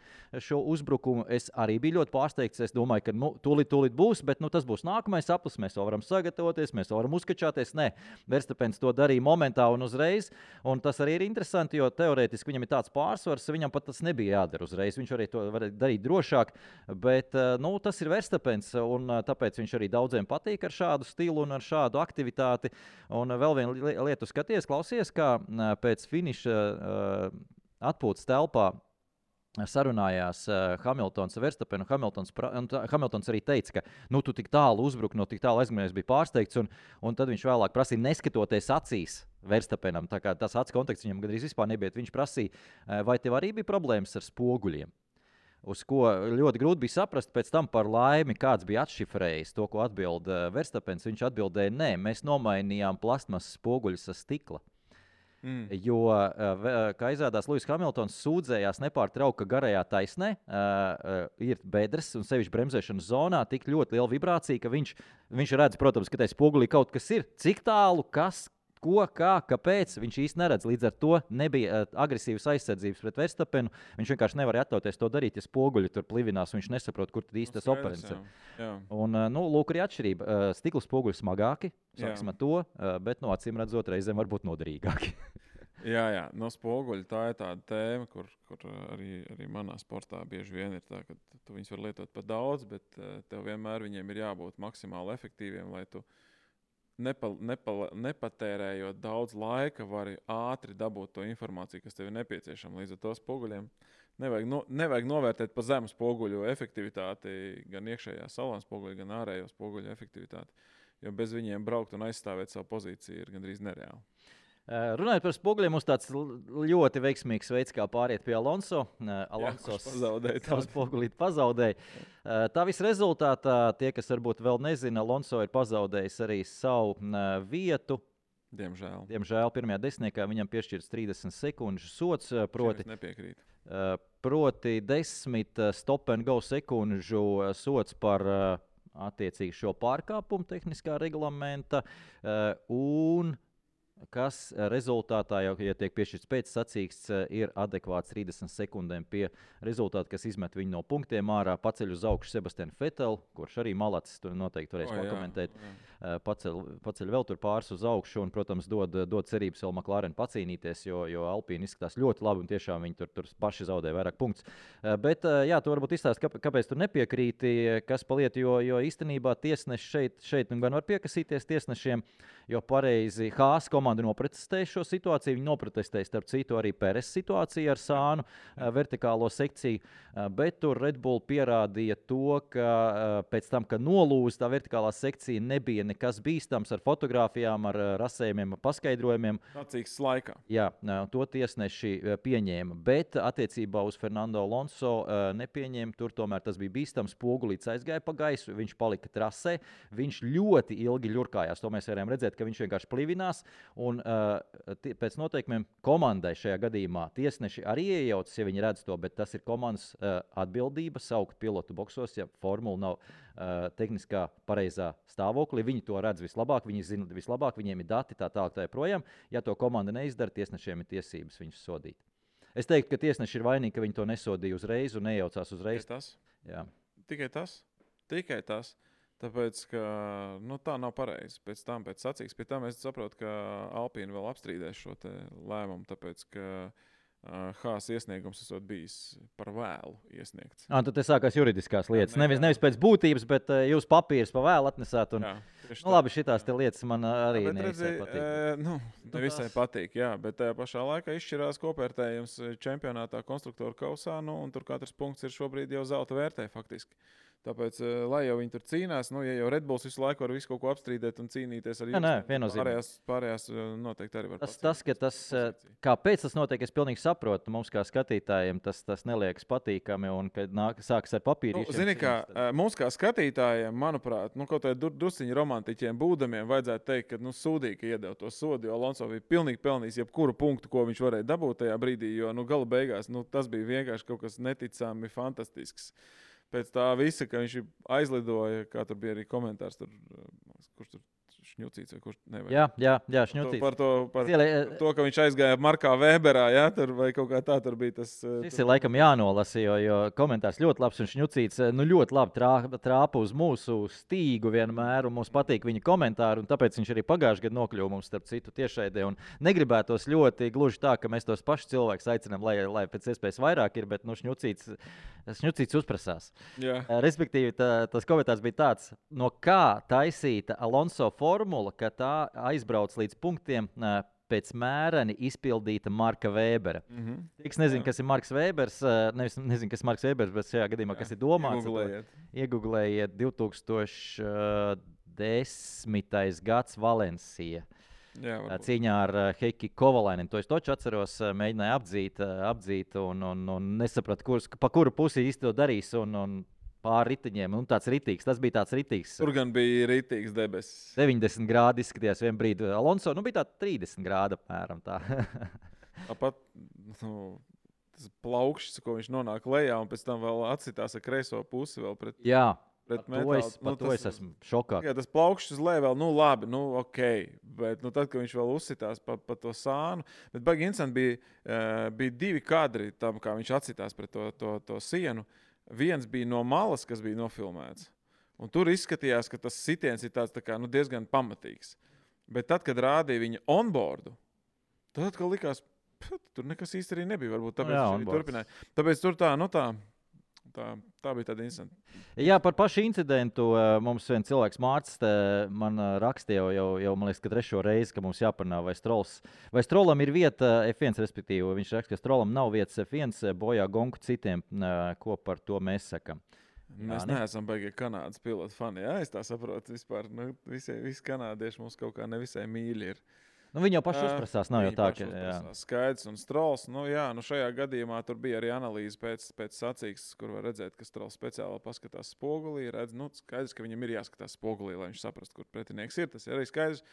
Speaker 3: šo uzbrukumu. Es arī biju ļoti pārsteigts. Es domāju, ka tūlīt būs, bet tas būs nākamais aplis. Mēs vēl varam sagatavoties, mēs vēl varam uzkačāties. Nē, Verstapens to darīja momentā un uzreiz. Un tas arī ir interesanti, jo teorētiski viņam ir tāds pārsvars, viņam pat tas nebija jādara uzreiz. Viņš arī to var darīt drošāk, bet tas ir Verstapens, un tāpēc viņš arī daudziem patīk ar šādu stilu un ar šādu aktivitāti. Un vēl viena lieta skaties, klausies, kā pēc finiša atpūtas telpā sarunājās Hamiltons ar Verstapenu. Hamiltons arī teica, ka tu tik tālu uzbruki, no tik tālu aizmugurēs bija pārsteigts, un tad viņš vēlāk prasīja, neskatoties acīs Verstapenam. Tā kā tas acu kontakts viņam gandrīz vispār nebija. Viņš prasīja, vai tev arī bija problēmas ar spoguļiem? Uz ko ļoti grūti bija saprast, pēc tam par laimi kāds bija atšifrējis to, ko atbild Verstapens. Viņš atbildēja, nē, mēs nomainījām plastmasas spoguļus ar stikla. Jo, kā izrādās, Lewis Hamiltons sūdzējās nepārtraukti, ka garajā taisnē ir bedres un sevišķi bremzēšanas zonā tik ļoti liela vibrācija, ka viņš redz, protams, ka tajā spogulī kaut kas ir. Cik tālu, kas, ko, kā, kāpēc, viņš īsti neredz. Līdz ar to nebija agresīvas aizsardzības pret Verstapenu. Viņš vienkārši nevarēja atļauties to darīt, ja spoguļi tur plivinās, un viņš nesaprot, kur tad īsti tas operants ir. Un, lūk, arī atšķirība. Stikla spoguļi smagāki, sāksim ar to, bet, acīm redzot, reizēm varbūt noderīgāki.
Speaker 2: Jā, no spoguļa tā ir tāda tēma, kur arī manā sportā bieži vien ir tā, ka tu viņus var lietot par daudz, bet tev vienmēr viņiem ir jābūt maksimāli efektīviem, lai tu nepatērējot daudz laika, vari ātri dabūt to informāciju, kas tev ir nepieciešama. Līdz ar to spoguļiem nevajag novērtēt pa zemu spoguļu efektivitāti, gan iekšējā salona spoguļa, gan ārējo spoguļu efektivitāti, jo bez viņiem braukt un aizstāvēt savu pozīciju ir gandrīz nereāli.
Speaker 3: Runājot par spoguļiem, mums tāds ļoti veiksmīgs veids, kā pāriet pie Alonso. Alonso savu spogulīti pazaudēja. Tā visa rezultātā, tie, kas varbūt vēl nezina, Alonso ir pazaudējis arī savu vietu. Diemžēl pirmajā desmitniekā viņam piešķirts 30 sekundžu sots, proti 10 stop and go sekundžu sots par attiecīgi šo pārkāpumu tehniskā reglamenta un kas rezultātā, jau, ja tiek piešķirts pēcsacīksts, ir adekvāts 30 sekundēm pie rezultāta, kas izmet viņu no punktiem ārā, paceļ uz augšu Sebastianu Vetelu, kurš arī malacis, tur noteikti varēs pakomentēt. Paceļ vēl tur pāris uz augšu un, protams, dod cerības vēl McLaren pacīnīties, jo Alpīni izskatās ļoti labi un tiešām viņi tur paši zaudē vairāk punktus. Bet, jā, tu varbūt izstāst, kāpēc tu nepiekrīti, kas paliet, jo īstenībā tiesneši šeit gan var piekasīties tiesnešiem, jo pareizi Haas komanda noprotestēja šo situāciju. Viņi noprotestēja, starp citu, arī Peres situāciju ar sānu vertikālo sekciju, bet tur Red Bull pierādīja to, ka pēc tam, ka nolūza tā vertikālā sekcija, nebija nekas bīstams ar fotogrāfijām, ar rasējumiem, ar paskaidrojumiem.
Speaker 2: Sacīksts laikā.
Speaker 3: Jā, to tiesneši pieņēma, bet attiecībā uz Fernando Alonso nepieņēma. Tur tomēr tas bija bīstams, spogulīts aizgāja pa gaisu, viņš palika trasē, viņš ļoti ilgi ļurkājās, to mēs varējām redzēt, ka viņš vienkārši plivinās, un pēc noteikumiem komandai šajā gadījumā tiesneši arī iejaucas, ja viņi redz to, bet tas ir komandas atbildība saukt pilotu boksos, ja formula nav tehniskā pareizā stāvoklī. Viņi to redz vislabāk, viņi zina vislabāk, viņiem ir dati tā tālāk tā joprojām. Ja to komanda neizdara, tiesnešiem ir tiesības viņus sodīt. Es teiktu, ka tiesneši ir vainīgi, ka viņi to nesodīja uzreiz un nejaucās uzreiz.
Speaker 2: Tikai tas. Tāpēc, ka tā nav pareizi. Pēc sacīksts, pie tam es saprotu, ka Alpīni vēl apstrīdēs šo te lēmumu, tāpēc, ka Haas iesniegums esot bijis par vēlu iesniegts.
Speaker 3: Tad te sākās juridiskās lietas. Nevis pēc būtības, bet jūs papīrus pa vēlu atnesāt. Un, labi, šitās te lietas man arī nevisai patīk.
Speaker 2: Nevisai patīk, jā, bet tajā pašā laikā izšķirās kopvērtējums čempionātā konstruktoru kausā, un tur katrs punkts ir šobrīd jau zelta vērtē faktiski. Tāpēc, lai jau viņi tur cīnās, ja jau Red Bulls visu laiku var visu kaut ko apstrīdēt un cīnīties ar jums, pārējās noteikti arī var pacīnīties. Kāpēc tas notiek, es pilnīgi saprotu. Mums kā skatītājiem tas neliekas patīkami un kad sākas ar papīrīšiem. Zini kā, mums kā skatītājiem, manuprāt, kaut vai drusciņi romantiķiem būdamiem vajadzētu teikt, ka sūdīgi, ka iedeva to sodu, jo Alonso bija pilnīgi pelnījis jebkuru punktu, ko viņš varēja dabūt tajā brīdī, jo gala beigās tas bija vienkārši kaut kas neticami fantastisks. pēc tā visa, ka viņš aizlidoja, kā tur bija arī komentārs, tur, kurš tur Šņucīts vai kurš nevajag.
Speaker 3: Jā, Šņucīts.
Speaker 2: Par to, ka viņš aizgāja Markā Weberā, ja, tur, vai kaut kā tā tur bija tas.
Speaker 3: Šis ir laikam jānolasa, jo komentārs ļoti labs un Šņucīts ļoti labi trāpa uz mūsu stīgu vienmēr, un mums patīk viņa komentāri, un tāpēc viņš arī pagājušajā gadā nokļuva mums starp citu tiešraidē, un negribētos ļoti gluži tā, ka mēs tos pašus cilvēkus aicinām, lai pēc iespējas vairāk ir, bet Šņucīts uzprasās.
Speaker 2: Jā.
Speaker 3: Respektīvi, tas komentārs bija tāds, no kā taisīta Alonso formula, ka tā aizbrauc līdz punktiem pēc mēreni izpildīta Marka Webera. Tiks nezinu, kas ir Marks Webers, nezinu, kas ir Marks Webers, bet šajā gadījumā, kas ir domāts. Iegooglējiet 2010. gads Valencija. Cīņā ar Heiki Kovalainen. To es taču atceros, mēģināju apdzīt un nesapratu, pa kuru pusi īsti to darīs un pāri riteņiem. Tas bija tāds ritīgs.
Speaker 2: Tur gan bija ritīgs debesis.
Speaker 3: 90 grādi izskatījās vien brīdi. Alonso bija tā 30 grādi apmēram tā.
Speaker 2: Tāpat tas plaukšs, ko viņš nonāk lejā un pēc tam vēl atsitās ar kreiso pusi vēl pret.
Speaker 3: Jā.
Speaker 2: Par
Speaker 3: to es esmu šokā.
Speaker 2: Jā, tas plaukšs uz leju vēl, labi, ok. Bet tad, kad viņš vēl uzsitās pa to sānu, bet baigi interesanti bija divi kadri tam, kā viņš atsitās pret to sienu. Viens bija no malas, kas bija nofilmēts. Un tur izskatījās, ka tas sitiens ir tāds tā kā, diezgan pamatīgs. Bet tad, kad rādīja viņa onboardu, tad atkal likās, tur nekas īsti arī nebija. Varbūt tāpēc viņš arī turpināja. Tāpēc tur tā bija tāda interesanta.
Speaker 3: Jā, par pašu incidentu mums viens cilvēks Mārcis man rakstīja jau man liekas, ka 3. reizi, ka mums jāparunā, vai Strollam ir vieta F1, respektīvi. Viņš raksta, ka Strollam nav vietas F1, bojā gonku citiem, ko par to mēs sakam.
Speaker 2: Mēs neesam beigie Kanādas pilotu fani, jā, es tā saprotu vispār. Visi kanādieši mums kaut kā nevisai mīļi ir.
Speaker 3: Viņi jau paši uzprasās, nav jau tā, ka
Speaker 2: Skaidrs un Strolls. Šajā gadījumā tur bija arī analīze pēc sacīkstes, kur var redzēt, ka Strolls speciāli paskatās spogulī. Redz, skaidrs, ka viņam ir jāskatās spogulī, lai viņš saprastu, kur pretinieks ir. Tas ir arī skaidrs.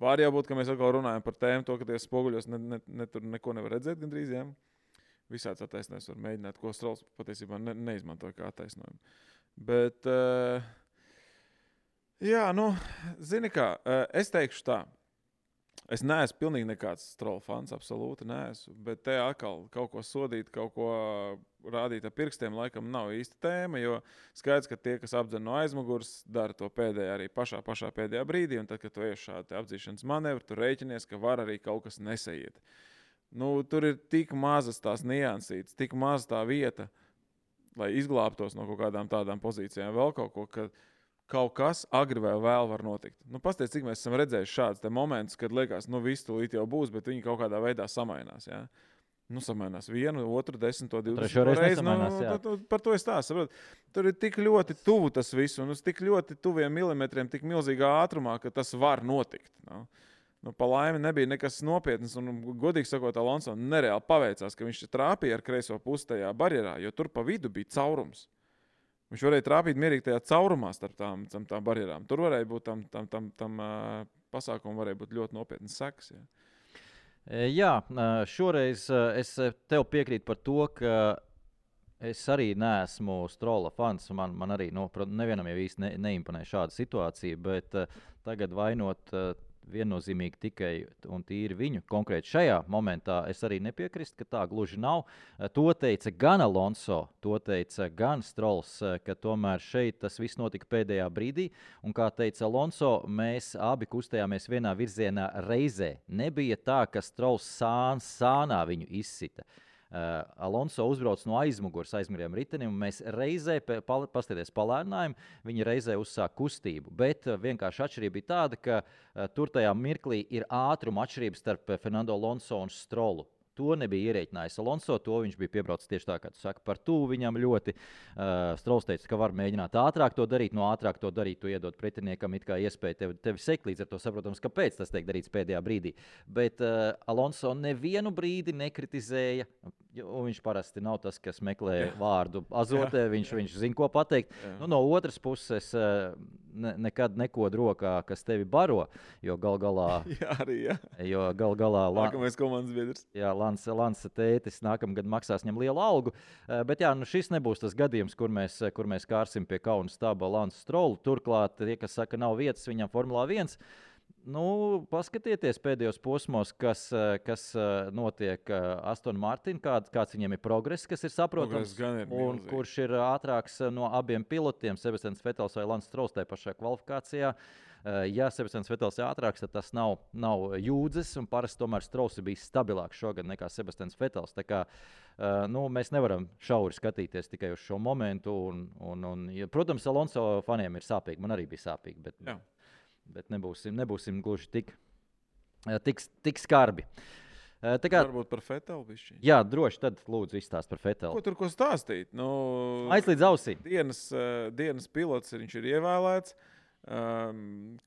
Speaker 2: Var jābūt, ka mēs atkal runājam par tēmu, to, ka tie spoguļos tur neko nevar redzēt gandrīz. Jā. Visāds attaisnojums var mēģināt, ko Strolls patiesībā neizmantoja kā attaisnojumu. Bet, zini kā, es teikšu tā. Es neesmu pilnīgi nekāds Stroll fans, absolūti neesmu, bet te atkal kaut ko sodīt, kaut ko rādīt ar pirkstiem, laikam nav īsta tēma, jo skaidrs, ka tie, kas apdzen no aizmugures, dara to pēdējā arī pašā pēdējā brīdī, un tad, kad tu ej šādi apdzīšanas manevri, tu rēķinies, ka var arī kaut kas nesaiet. Tur ir tik mazas tās niansītes, tik maza tā vieta, lai izglābtos no kaut kādām tādām pozīcijām, vēl kaut ko, ka kaut kas agri vai vēl var notikt. Pastāstiet, cik mēs esam redzējuši šādus momentus, kad liekas, viss tūlīt jau būs, bet viņi kaut kādā veidā samainās. Ja? Samainās 1, 2, 10, 20 reizi. Par to es tā saprotu. Tur ir tik ļoti tuvu tas viss, un uz tik ļoti tuviem milimetriem, tik milzīgā ātrumā, ka tas var notikt. Pa laimi nebija nekas nopietns, un godīgi sakot, Alonso nereāli paveicās, ka viņš trāpīja ar kreiso pusi tajā barjerā, jo tur pa vidu bija caurums. Viņš varēja trāpīt mierīgi tajā caurumā starp tām barjerām. Tur varēja būt tam pasākumam varēja būt ļoti nopietnas sekas.
Speaker 3: Jā, šoreiz es tev piekrītu par to, ka es arī neesmu Strolla fans. Man arī nevienam jau īsti neimponē šāda situācija, bet tagad vainot viennozīmīgi tikai un tīri viņu. Konkrēti šajā momentā es arī nepiekrīstu, ka tā gluži nav. To teica gan Alonso, to teica gan Strolls, ka tomēr šeit tas viss notika pēdējā brīdī. Un kā teica Alonso, mēs abi kustējāmies vienā virzienā reizē. Nebija tā, ka Strolls sānā viņu izsita. Alonso uzbrauc no aizmuguriem ritenim, un mēs reizē, paskatieties palēninājumi, viņi reizē uzsāk kustību. Bet vienkārši atšķirība bija tāda, ka tur tajā mirklī ir ātruma atšķirības starp Fernando Alonso un Strollu. To nebija ierēķinājis Alonso, to viņš bija piebraucis tieši tā, kā tu saki, par tuvu viņam ļoti. Strolls teica, ka var mēģināt ātrāk to darīt, no ātrāk to darīt, tu iedod pretiniekam it kā iespēju tevi sekt, līdz ar to saprotams, kāpēc tas tiek darīts pēdējā brīdī. Bet Alonso nevienu brīdi nekritizēja, un viņš parasti nav tas, kas meklē vārdu azotē, viņš zina, ko pateikt. No otras puses, nekad nekod rokā, kas tevi baro, jo gal galā...
Speaker 2: Jā, arī, jā.
Speaker 3: Jo gal galā...
Speaker 2: Nākamais komandas biedrs.
Speaker 3: Jā, Lansa tētis nākamgad maksās viņam lielu algu, bet jā, nu šis nebūs tas gadījums, kur mēs kārsim pie kauna staba Lansu Strolu. Turklāt, tie, kas saka, nav vietas viņam Formulā 1, nu, paskatieties pēdējos posmos, kas notiek Aston Martin, kāds viņiem ir progress, kas ir saprotams, un kurš ir ātrāks no abiem pilotiem, Sebastians Vettels vai Lance Strols tajā pašā kvalifikācijā. Ja Sebastians Vettels ir ātrāks, tad tas nav jūdzes, un parasti tomēr Strols ir bijis stabilāks šogad nekā Sebastians Vettels. Tā kā nu, mēs nevaram šauri skatīties tikai uz šo momentu, un protams, Alonso faniem ir sāpīgi, man arī bija sāpīgi, bet nebūsim gluži tik skarbi.
Speaker 2: Varbūt par Vettelu bišķiņ.
Speaker 3: Jā, droši, tad lūdzu izstāst par Vettelu.
Speaker 2: Ko stāstīt? Nu,
Speaker 3: Aizlīdz ausī.
Speaker 2: Dienas pilots, viņš ir ievēlēts.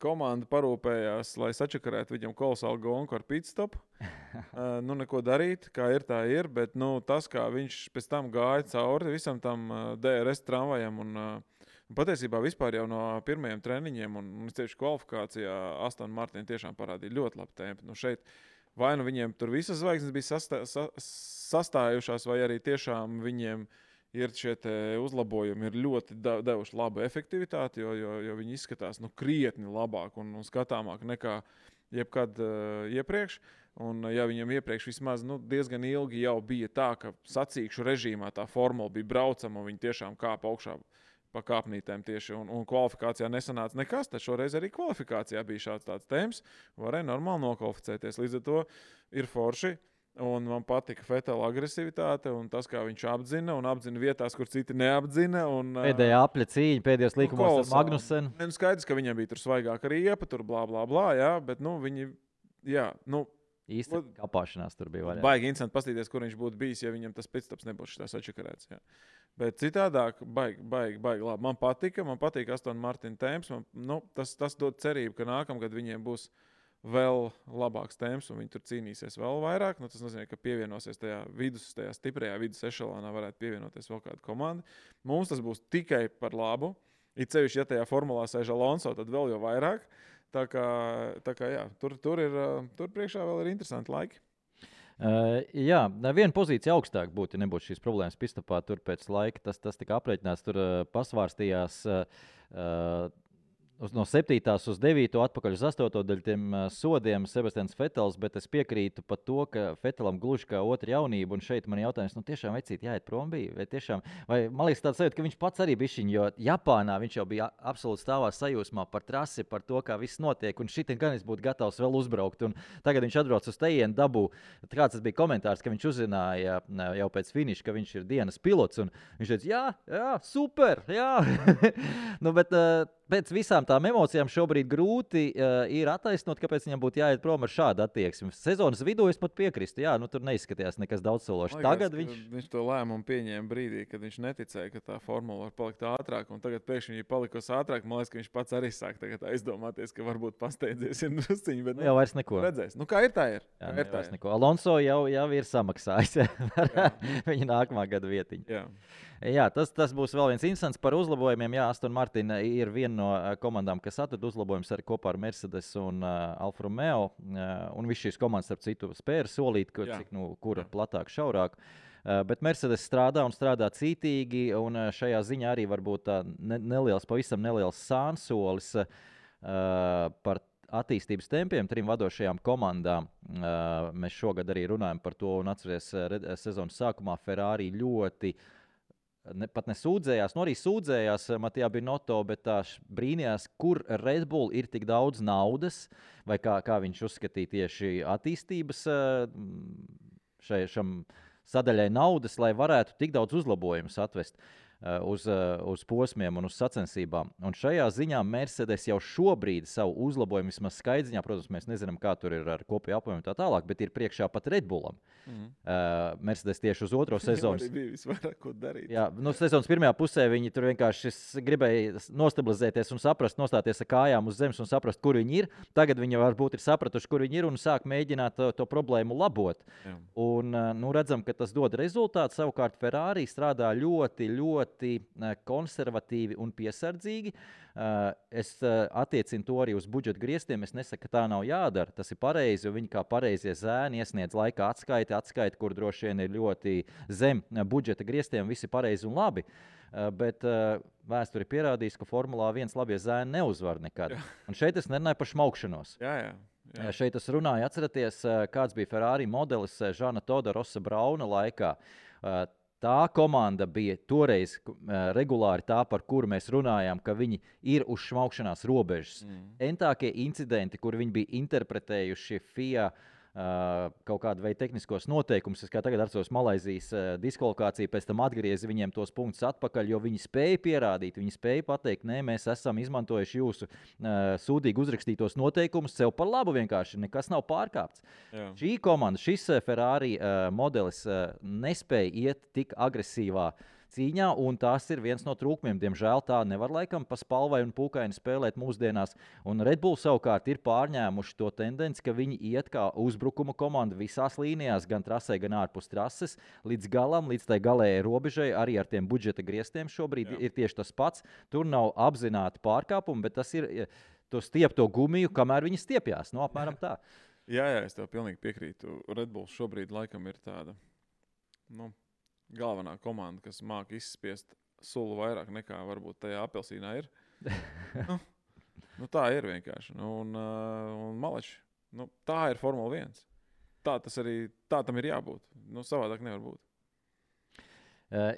Speaker 2: Komanda parūpējās, lai sačakarētu viņam kolosālu gonku ar pitstopu. Nu, neko darīt, kā ir, tā ir, bet tas, kā viņš pēc tam gāja cauri visam tam DRS tramvajam un patiesībā vispār jau no pirmajiem treniņiem un tieši kvalifikācijā Aston Martin tiešām parādīja ļoti labu tempu. Nu, šeit vai nu viņiem tur visas zvaigznes bija sastājušās, vai arī tiešām viņiem ir šie uzlabojumi, ir ļoti devuši labu efektivitāti, jo viņi izskatās krietni labāk un skatāmāk nekā jebkad iepriekš. Un ja viņam iepriekš vismaz diezgan ilgi jau bija tā, ka sacīkšu režīmā tā formula bija braucama un viņi tiešām kāpa augšā pa kāpnītēm tieši un kvalifikācijā nesanāca nekas, tad šoreiz arī kvalifikācijā bija šāds tāds temps, varēja normāli nokvalificēties. Līdz ar to ir forši. Un man patika Vettela agresivitāte un tas, kā viņš apdzina vietās, kur citi neapdzina.
Speaker 3: Pēdējā apļa cīņa, pēdējos līkumos ar Magnusenu.
Speaker 2: Skaidrs, ka viņam bija tur svaigāka riepa, tur blā, blā, blā, jā, bet viņi, jā,
Speaker 3: īsti kapāšanās tur bija vaļā.
Speaker 2: Baigi interesanti paskatīties, kur viņš būtu bijis, ja viņam tas pitstops nebūtu šitās atšakarēts, jā. Bet citādāk, baigi labi. Man patīk Aston Martin temps, tas dod cerību, ka nākamgad viņiem būs vēl labāks temps, un viņi tur cīnīsies vēl vairāk. Tas nozīmē, ka pievienosies tajā stiprajā vidus ešelonā varētu pievienoties vēl kāda komanda. Mums tas būs tikai par labu. It sevišķi, ja tajā formulā sēž Alonso, tad vēl jau vairāk. Tā kā jā, tur priekšā vēl ir interesanti laiki.
Speaker 3: Jā, viena pozīcija augstāk būtu, ja nebūtu šīs problēmas pistopā. Tur pēc laika tas tika aprēķināts, tur pasvārstījās no 7. uz 9. atpakaļ uz 8. daļu tiem sodiem Sebastians Vettels, bet es piekrītu par to, ka Vettelam gluži kā otra jaunība, un šeit man jautājums, tiešām vecīt jāiet prom bija, vai man liekas tāds sajūta, ka viņš pats arī bišķiņ, jo Japānā viņš jau bija absolūti stāvā sajūsmā par trasi, par to, kā viss notiek, un šitien gan es būtu gatavs vēl uzbraukt, un tagad viņš atbrauc uz tejienu dabū, kāds tas bija komentārs, ka viņš uzzināja jau pēc finiša, ka viņš ir dienas pilots, un viņš teica, jā, super, jā, bet pēc visām tām emocijām šobrīd grūti ir attaisnot, kāpēc viņam būtu jāiet prom ar šādu attieksmi. Sezonas vidū es pat piekrīstu, tur neizskatījās nekas daudzsološs. Tagad
Speaker 2: viņš to lēmumu pieņēma brīdī, kad viņš neticēja, ka tā formula var palikt ātrāk, un tagad pēkšņi viņa palikusi ātrāk. Man liekas, ka viņš pats arī sāk tagad aizdomāties, ka varbūt pasteidzies ir drusciņi, bet
Speaker 3: jau vairs neko.
Speaker 2: Redzēs. Kā ir, tā ir.
Speaker 3: Jā, vairs neko. Alonso jau ir samaksājis viņa nākamā gada vietiņu. Jā, tas būs vēl viens instants par uzlabojumiem. Jā, Aston Martin ir viena no komandām, kas atrada uzlabojumus arī kopā ar Mercedes un Alfa Romeo. Un viss šīs komandas, starp citu, spēra solīt, kura platāk, šaurāk. Bet Mercedes strādā cītīgi, un šajā ziņā arī varbūt pavisam neliels sānsolis par attīstības tempiem trim vadošajām komandām. Mēs šogad arī runājam par to, un atceries sezonas sākumā Ferrari ļoti pat nesūdzējās, arī sūdzējās Matija Binotto, bet tā brīnījās, kur Red Bull ir tik daudz naudas, vai kā viņš uzskatīja tieši attīstības šam sadaļai naudas, lai varētu tik daudz uzlabojumus atvest uz posmiem un uz sacensībām. Un šajā ziņā Mercedes jau šobrīd savu uzlabojumu vismaz skaidriņā, protams, mēs nezinām, kā tur ir ar kopēju apjomu tā tālāk, bet ir priekšā pat Red Bullam. Mercedes tieši uz otro sezonu.
Speaker 2: Arī bija visvairāk ko darīt.
Speaker 3: Jā, sezonas pirmajā pusē viņi tur vienkārši gribēja nostabilizēties un saprast, nostāties ar kājām uz zemes un saprast, kur viņi ir. Tagad viņi varbūt ir sapratuši, kur viņi ir un sāk mēģināt to problēmu labot. Jā. Un redzam, ka tas dod rezultātu. Savukārt Ferrari strādā ļoti ļoti konservatīvi un piesardzīgi. Es attiecinu to arī uz budžeta griestiem. Es nesaku, ka tā nav jādara. Tas ir pareizi, jo viņi kā pareizie zēni iesniedz laika atskaiti, kur droši vien ir ļoti zem budžeta griestiem. Viss ir pareizi un labi. Bet vēsture ir pierādījusi, ka Formulā 1 labie zēni neuzvar nekad. Un šeit es nerunāju par šmaukšanos.
Speaker 2: Jā.
Speaker 3: Šeit es runāju, atceraties, kāds bija Ferrari modelis Žana Toda Rosa Brauna laikā. Tā komanda bija toreiz regulāri tā, par kuru mēs runājām, ka viņi ir uz šmaukšanās robežas. Entākie incidenti, kur viņi bija interpretējuši FIA kaut kādu veidu tehniskos noteikumus. Es kā tagad atceros Malaizijas diskvalifikāciju, pēc tam atgriezi viņiem tos punktus atpakaļ, jo viņi spēja pierādīt, viņi spēja pateikt, nē, mēs esam izmantojuši jūsu sūdīgi uzrakstītos noteikumus sev par labu vienkārši, nekas nav pārkāpts. Jā. Šī komanda, šis Ferrari modelis nespēja iet tik agresīvā cīņā, un tas ir viens no trūkumiem. Diemžēl tā nevar laikam pa spalvai un pūkaini spēlēt mūsdienās. Un Red Bull savukārt ir pārņēmuši to tendenci, ka viņi iet kā uzbrukuma komanda visās līnijās, gan trasē, gan ārpus trases, līdz galam, līdz tai galējai robežai, arī ar tiem budžeta griestiem šobrīd ir tieši tas pats. Tur nav apzināti pārkāpumi, bet tas ir to stiepto gumiju, kamēr viņi stiepjās. No, apmēram tā.
Speaker 2: Jā, es tev pilnīgi piekrītu. Red Bull šobrīd laikam ir tāda, galvenā komanda, kas māca izspiest sulu vairāk nekā varbūt tajā apelsīnā ir. Tā ir vienkārši. Un maleči, tā ir Formula 1. Tā tam ir jābūt. Savādāk nevar būt.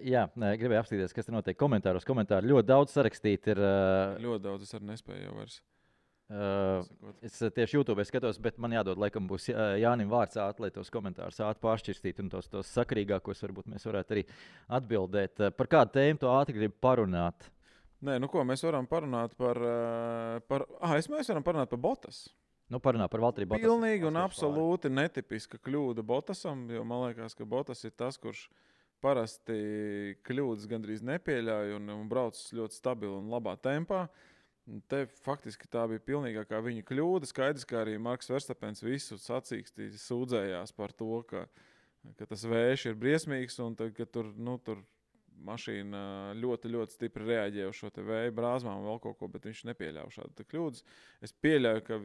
Speaker 3: Jā, gribēju apstīties, kas te notiek komentāros. Komentāri ļoti daudz sarakstīt ir.
Speaker 2: Ļoti daudz, es arī nespēju jau vairs.
Speaker 3: Es tieši YouTube skatos, bet man jādod, laikam, būs Jānim vārds ātri, lai tos komentārus ātri pāršķirstīt un tos sakarīgākos varbūt mēs varētu arī atbildēt. Par kādu tēmu tu ātri gribi parunāt?
Speaker 2: Nē, mēs varam parunāt mēs varam parunāt par Bottas.
Speaker 3: Parunāt par Valtteri Bottasu.
Speaker 2: Pilnīgi un absolūti netipiska kļūda Bottasam, jo man liekas, ka Bottas ir tas, kurš parasti kļūdas gandrīz nepieļauj un brauc ļoti stabili un labā tempā. Te faktiski tā bija pilnīgākā viņa kļūda. Skaidrs, ka arī Marks Verstapens visu sacīkstī sūdzējās par to, ka tas vējš ir briesmīgs un ka tur mašīna ļoti, ļoti stipri reaģē uz šo te vēju brāzmām un vēl kaut ko, bet viņš nepieļāva šādu kļūdas. Es pieļauju, ka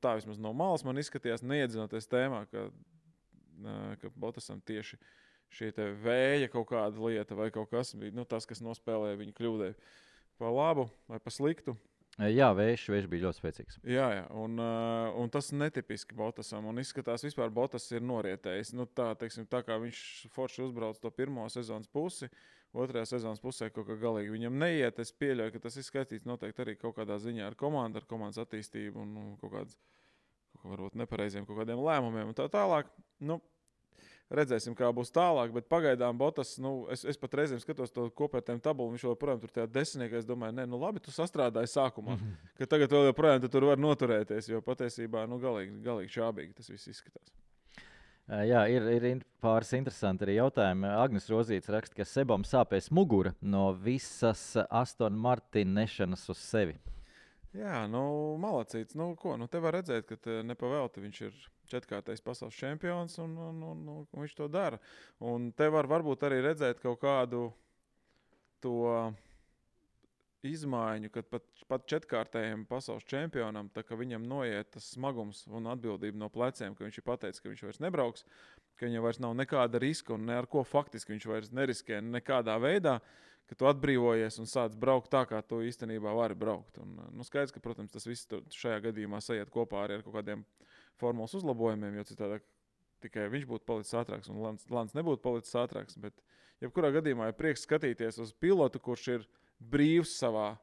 Speaker 2: tā vismaz no malas man izskatījās, neiedzinoties tēmā, ka Bottasam tieši šī te vēja kaut kāda lieta vai kaut kas bija tas, kas nospēlēja viņa kļūdai pa labu vai pa sliktu.
Speaker 3: Jā, vējš bija ļoti spēcīgs.
Speaker 2: Jā, un tas netipiski Bottasam, un izskatās vispār Bottas ir norietējis. Tā kā viņš forši uzbrauc to pirmo sezonas pusi, otrajā sezonas pusē kaut kā galīgi viņam neiet. Es pieļauju, ka tas ir skatīts noteikti arī kaut kādā ziņā ar komandas attīstību un kaut varbūt nepareiziem kaut kādiem lēmumiem un tā tālāk. Redzēsim, kā būs tālāk, bet pagaidām Bottas, es pat reizēm skatos to kopērtējumu tabulu, viņš joprojām tur tajā desmitniekā, es domāju, labi, tu sastrādāji sākumā, ka tagad vēl joprojām tur var noturēties, jo patiesībā, galīgi čābīgi tas viss izskatās.
Speaker 3: Jā, ir pāris interesanti arī jautājumi. Agnes Rozīts raksta, ka Sebam sāpēs mugura no visas Aston Martin nešanas uz sevi.
Speaker 2: Jā, malacīts. Te var redzēt, ka nepavēlti viņš ir 4-kārtais pasaules čempions un viņš to dara. Un te var varbūt arī redzēt kaut kādu to izmaiņu, kad pat 4-kārtējiem pasaules čempionam, tā ka viņam noiet tas smagums un atbildība no pleciem, ka viņš ir pateicis, ka viņš vairs nebrauks, ka viņam vairs nav nekāda riska un ne ar ko faktiski viņš vairs neriskē nekādā veidā, ka tu atbrīvojies un sāc braukt tā, kā tu īstenībā vari braukt. Un, skaidrs, ka, protams, tas viss šajā gadījumā sajiet kopā arī ar kaut kādiem formulas uzlabojumiem, jo citādi tikai viņš būtu palicis ātrāks un Lants nebūtu palicis ātrāks. Bet jebkurā gadījumā ir prieks skatīties uz pilotu, kurš ir brīvs savā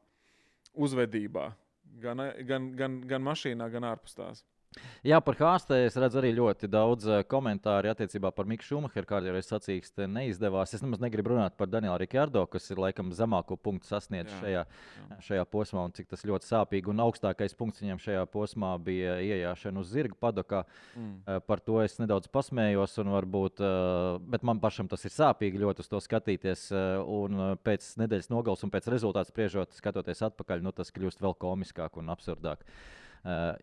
Speaker 2: uzvedībā, gan mašīnā, gan ārpus tās.
Speaker 3: Jā, par Hāstē es redzu arī ļoti daudz komentāru attiecībā par Miku Šumacheru, kāda jau es sacīkst, neizdevās. Es nemaz negribu runāt par Danielu Rikardo, kas ir laikam zemāko punktu sasniedz šajā posmā, un cik tas ļoti sāpīgi. Un augstākais punkts viņam šajā posmā bija iejāšana uz zirga padokā. Par to es nedaudz pasmējos, un varbūt, bet man pašam tas ir sāpīgi ļoti uz to skatīties. Un pēc nedēļas nogales un pēc rezultātu spriežot, skatoties atpakaļ, tas kļūst vēl komiskāk un absurdāk.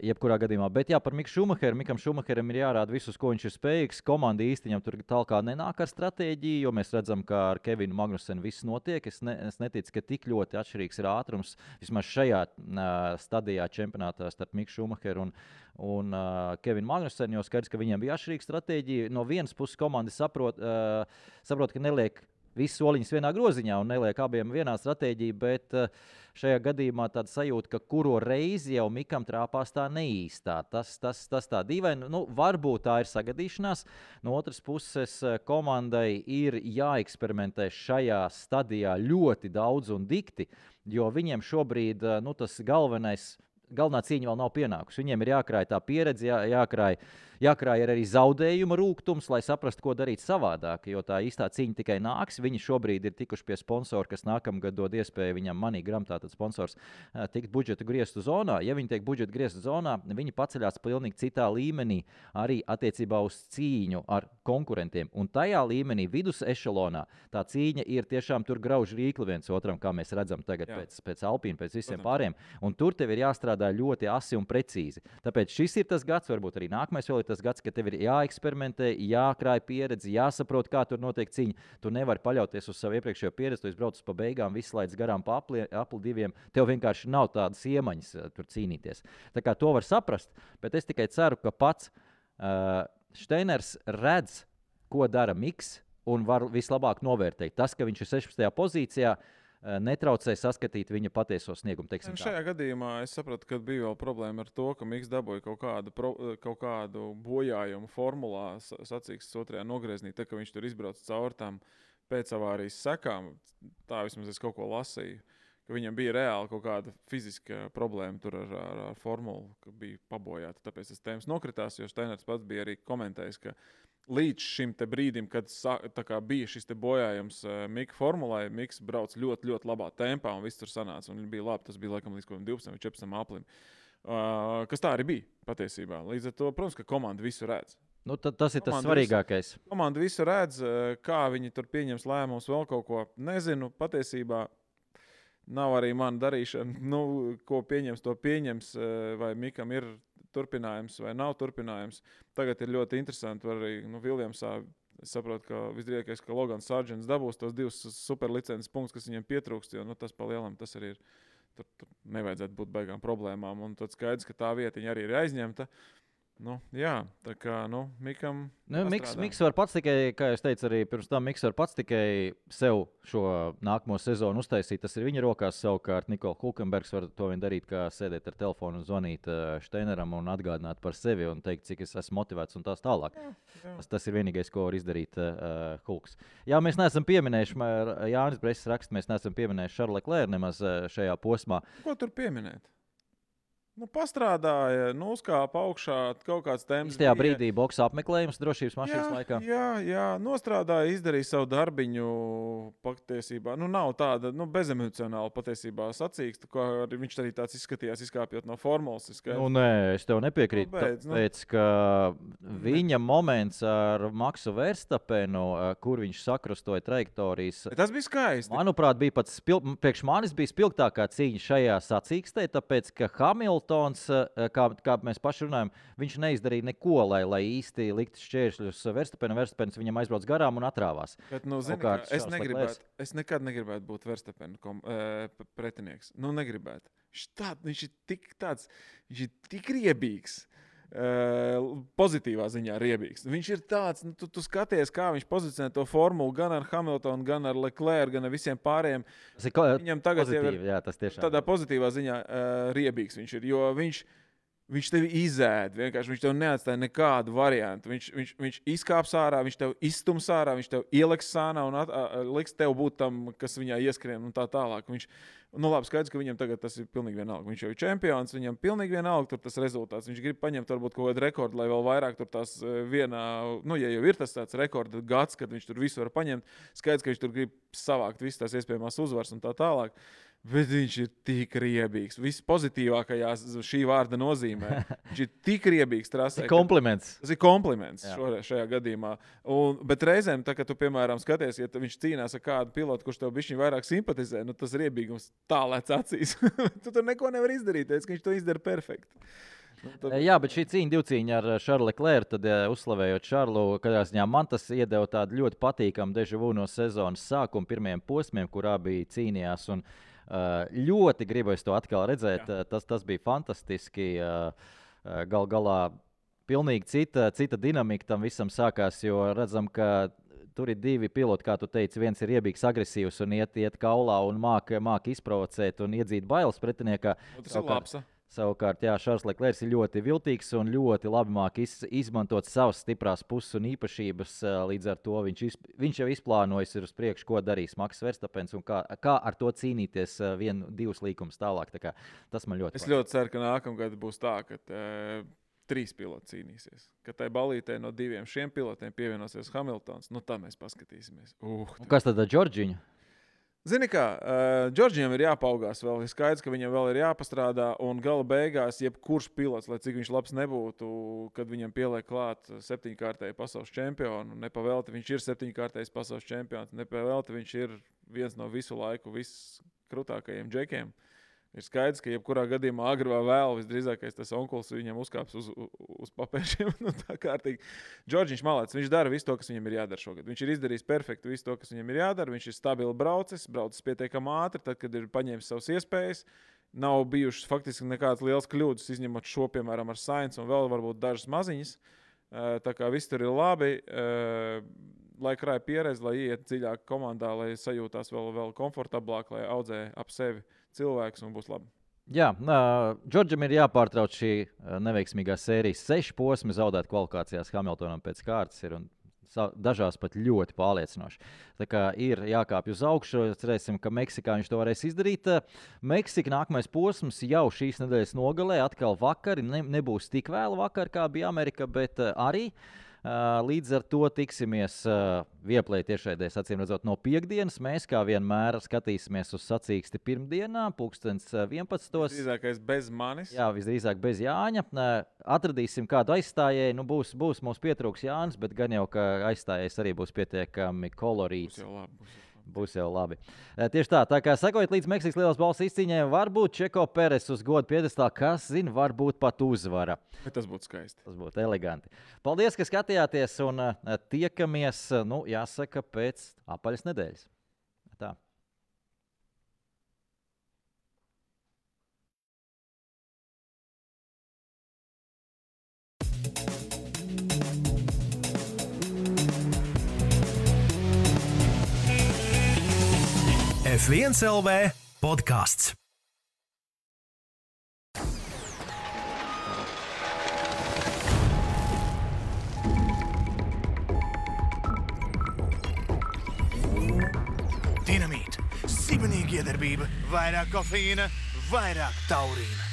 Speaker 3: Jebkurā gadījumā. Bet jā, par Miku Šumacheru. Mikam Šumacheram ir jārāda visus, ko viņš ir spējīgs. Komanda īsti viņam tur tālāk nenāk ar stratēģiju, jo mēs redzam, ka ar Kevinu Magnusenu viss notiek. Es neticu, ka tik ļoti atšķirīgs ir ātrums vismaz šajā stadijā čempionātā starp Miku Šumacheru un Kevinu Magnusenu, jo skaidrs, ka viņiem bija atšķirīga stratēģija. No vienas puses komanda saprot, ka neliek visus soliņus vienā groziņā un neliek abiem vienā stratēģija, bet šajā gadījumā tāda sajūta, ka kuro reizi jau Mikam trāpās tā neīstā. Tas tā dīvaini. Varbūt tā ir sagadīšanās. No otras puses, komandai ir jāeksperimentē šajā stadijā ļoti daudz un dikti, jo viņiem šobrīd tas galvenā cīņa vēl nav pienākusi. Viņiem ir jākrāj tā pieredze, jākrāj arī zaudējuma rūgtums, lai saprastu, ko darīt savādāk, jo tā īstā cīņa tikai nāks. Viņi šobrīd ir tikuši pie sponsora, kas nākamgad dod iespēju viņam MoneyGram, tātad sponsors, tikt budžeta griestu zonā. Ja viņi tiek budžeta griestu zonā, viņi paceļās pilnīgi citā līmenī arī attiecībā uz cīņu ar konkurentiem. Un tajā līmenī, vidus ešelonā, tā cīņa ir tiešām tur grauž rīkli viens otram, kā mēs redzam tagad pēc Alpīna, pēc visiem pāriem. Un tur tev ir jāstrādā ļoti asi un precīzi. Tāpēc šis ir tas gads, varbūt arī nākamais vēl ir tas gads, ka tev ir jāeksperimentē, jākrāj pieredzi, jāsaprot, kā tur notiek cīņa. Tu nevari paļauties uz savu iepriekšējo pieredzi, tu izbrauc pa beigām, viss laids garām pa apli diviem. Tev vienkārši nav tādas iemaņas tur cīnīties. Tā kā to var saprast, bet es tikai ceru, ka pats Steiners redz, ko dara Miks un var vislabāk novērtēt. Tas, ka viņš ir 16. pozīcijā, netraucē saskatīt viņa patieso sniegumu.
Speaker 2: Šajā gadījumā es sapratu, ka bija vēl problēma ar to, ka Miks dabūja kaut kādu bojājumu formulā sacīkstes otrajā nogrieznī, tā ka viņš tur izbrauc caur tām pēcavārijas sekām. Tā vismaz es kaut ko lasīju, ka viņam bija reāli kaut kāda fiziska problēma tur ar formulu, ka bija pabojāta. Tāpēc tas tēmas nokritās, jo Steiners pats bija arī komentējis, ka līdz šim te brīdim, kad bija šis te bojājums Mika formulai, Miks brauc ļoti, ļoti labā tempā un viss tur sanāca. Un bija labi, tas bija laikam līdz 12 vai 14 aplim. Kas tā arī bija patiesībā. Līdz ar to, protams, ka komanda visu redz.
Speaker 3: Tas ir tas svarīgākais.
Speaker 2: Komanda visu redz, kā viņi tur pieņems lēmumus, vēl kaut ko. Nezinu, patiesībā nav arī mana darīšana. Ko pieņems, to pieņems, vai Mikam ir turpinājums vai nav turpinājums. Tagad ir ļoti interesanti, arī Viljamsā es saprotu, ka visdrīzākais, ka Logans Sargents dabūs tos 2 superlicences punktus, kas viņam pietrūkst, jo tas pa lielam tas arī ir. Tur nevajadzētu būt baigām problēmām. Un tad skaidrs, ka tā vietiņa arī ir aizņemta. Jā, tā kā, Mikam
Speaker 3: Miks var pats tikai, kā es teicu arī pirms tam, Miks var pats tikai sev šo nākamo sezonu uztaisīt. Tas ir viņa rokās. Savukārt Nikola Hulkenbergs var to vien darīt, kā sēdēt ar telefonu un zvanīt Steineram un atgādināt par sevi un teikt, cik es esmu motivēts un tās tālāk. Jā. Tas ir vienīgais, ko var izdarīt Hulks. Jā, mēs neesam pieminējuši, Jānis Bresis raksta, mēs neesam pieminējuši Charles Leclerc nemaz šajā posmā.
Speaker 2: Ko tur pieminēt? Pastrādāja, uzkāpa augšā, kaut kāds temps.
Speaker 3: Tajā brīdī boks apmeklējums drošības mašīnas laikā.
Speaker 2: Jā, nostrādāja, izdarīja savu darbiņu patiesībā. Nav tāda bezemocionāla patiesībā sacīksta, ko viņš arī tāds izskatījās, izkāpjot no formulas.
Speaker 3: Nē, es tev nepiekrītu. Tāpēc, ka viņa moments ar Maksu Verstapenu, kur viņš sakrustoja trajektorijas.
Speaker 2: Tas bija skaisti.
Speaker 3: Manuprāt, bija pats priekš manis bija spilgtākā cīņa šajā sacīkstē, tāpēc, ka Hamiltons, kā mēs paši runājam, viņš neizdarīja neko, lai īsti liktu šķēršļus Verstapenam. Verstapens viņam aizbrauc garām un atrāvās.
Speaker 2: Bet, es nekad negribētu būt Verstapena pretinieks. Negribētu. Viņš ir tik riebīgs. Pozitīvā ziņā riebīgs. Viņš ir tāds, tu skaties, kā viņš pozicionē to formulu gan ar Hamiltonu, gan ar Leclerc, gan ar visiem pārējiem.
Speaker 3: Viņam tagad ir tas tiešām
Speaker 2: tādā pozitīvā ziņā riebīgs viņš ir, jo viņš tevi izēd, vienkārši viņš tev neatstāja nekādu variantu. Viņš izkāps ārā, viņš tev izstums ārā, viņš tev ieliks sānā un liks tev būt tam, kas viņā ieskrien un tā tālāk. Labi, skaidrs, ka viņam tagad tas ir pilnīgi vienalga. Viņš jau ir čempions, viņam pilnīgi vienalga tur tas rezultāts. Viņš grib paņemt varbūt kaut kādu rekordu, lai vēl vairāk tur tās vienā, ja jau ir tas tāds rekorda gads, kad viņš tur visu var paņemt, skaidrs, ka viņš tur grib savākt visas tās iespējamās uzvaras un tā tālāk. Bet viņš ir tik riebīgs. Viss pozitīvākajā šī vārda nozīmē. Viņš ir tik riebīgs trasē.
Speaker 3: Kompliments.
Speaker 2: Tas ir kompliments šajā gadījumā. Bet reizēm, tā, kad tu, piemēram, skaties, ja viņš cīnās ar kādu pilotu, kurš tev bišķiņ vairāk simpatizē, nu tas riebīgums tā lēc acīs. Tu tur neko nevar izdarīt, ka viņš to izdara perfekti.
Speaker 3: Jā, bet šī divcīņa ar Šarlu Leclerc, tad uzslavējot Šarlu, kādā ziņā man tas iedeva tādu ļoti patīkamu deja vu no sezonas sākuma pirmajiem posmiem, kurā bija cīnījās. Un ļoti gribu es to atkal redzēt. Tas bija fantastiski. Gal galā pilnīgi cita dinamika tam visam sākās, jo redzam, ka tur ir divi piloti, kā tu teici. Viens ir riebīgs, agresīvs un iet kaulā un māk izprovocēt un iedzīt bailes pretiniekā.
Speaker 2: Tas ir labs.
Speaker 3: Savukārt, Šarls Leclerc ir ļoti viltīgs un ļoti labi māk izmantot savas stiprās puses un īpašības. Līdz ar to viņš jau izplānojis uz priekšu, ko darīs Maks Verstapens un kā ar to cīnīties 1-2 līkumus tālāk. Tā kā, tas man ļoti patīk. Es
Speaker 2: ļoti ceru, ka nākamgad būs tā, ka 3 piloti cīnīsies. Ka tai balītē no 2 šiem pilotiem pievienosies Hamiltons. Nu, tā mēs paskatīsimies.
Speaker 3: Kas tad ar Džordžiņu?
Speaker 2: Zini kā, Džordžiem ir jāpaugās vēl. Ir skaidrs, ka viņam vēl ir jāpastrādā. Un gala beigās, jebkurš pilots, lai cik viņš labs nebūtu, kad viņam pieliek klāt 7-kārtēju pasaules čempionu, nepavēlti viņš ir 7-kārtējs pasaules čempions, nepavēlti viņš ir viens no visu laiku viskrūtākajiem džekiem. Ir skaidrs, ka jebkurā gadījumā agri vai vēl visdrīzākais tas onkulis viņam uzkāps uz papēžiem. Nu, tā kārtīgi. Džordžiņš malācis, viņš dara visu to, kas viņam ir jādara šogad. Viņš ir izdarījis perfekti visu to, kas viņam ir jādara. Viņš ir stabili braucis pietiekami ātri, tad, kad ir paņēmis savas iespējas. Nav bijušas faktiski nekādas lielas kļūdas, izņemot šo, piemēram, ar Sainz un vēl varbūt dažas maziņas. Tā kā viss tur ir labi. Lai krāja pieredzi, lai iet dziļāk komandā, lai sajūtās vēl komfortablāk, lai audzē ap sevi cilvēks un būs labi.
Speaker 3: Jā, Džordžam ir jāpārtrauc šī neveiksmīgā sērijas 6 posmi, zaudēt kvalifikācijās Hamiltonam pēc kārtas ir un dažās pat ļoti pārliecinoši. Tā kā ir jākāpj uz augšu, cerēsim, ka Meksikā viņš to varēs izdarīt. Meksika nākamais posms jau šīs nedēļas nogalē, atkal vakari, nebūs tik vēlu vakar, kā bija Amerika, bet arī. Līdz ar to tiksimies Vieplay tiešraidēs, acīm redzot, no piekdienas. Mēs, kā vienmēr, skatīsimies uz sacīksti pirmdienā, 11.
Speaker 2: Visdrīzākais bez manis.
Speaker 3: Jā, visdrīzāk bez Jāņa. Atradīsim kādu aizstājēju. Nu, būs mums pietrūks Jānis, bet gan jau, ka aizstājējs arī būs pietiekami kolorīts. Būs jau labi. Tieši tā kā sekojiet līdz Meksikas lielās balvas izcīņai, varbūt Čeko Peres uz godu piedestālu, kas zina, varbūt pat uzvara.
Speaker 2: Bet tas būtu skaisti.
Speaker 3: Tas būtu eleganti. Paldies, ka skatījāties un tiekamies, jāsaka, pēc apaļas nedēļas. Tā.
Speaker 1: F1 LV podkāsts. Dinamīta, sibenīga iedarbība, vairāk kofeīna, vairāk taurīna.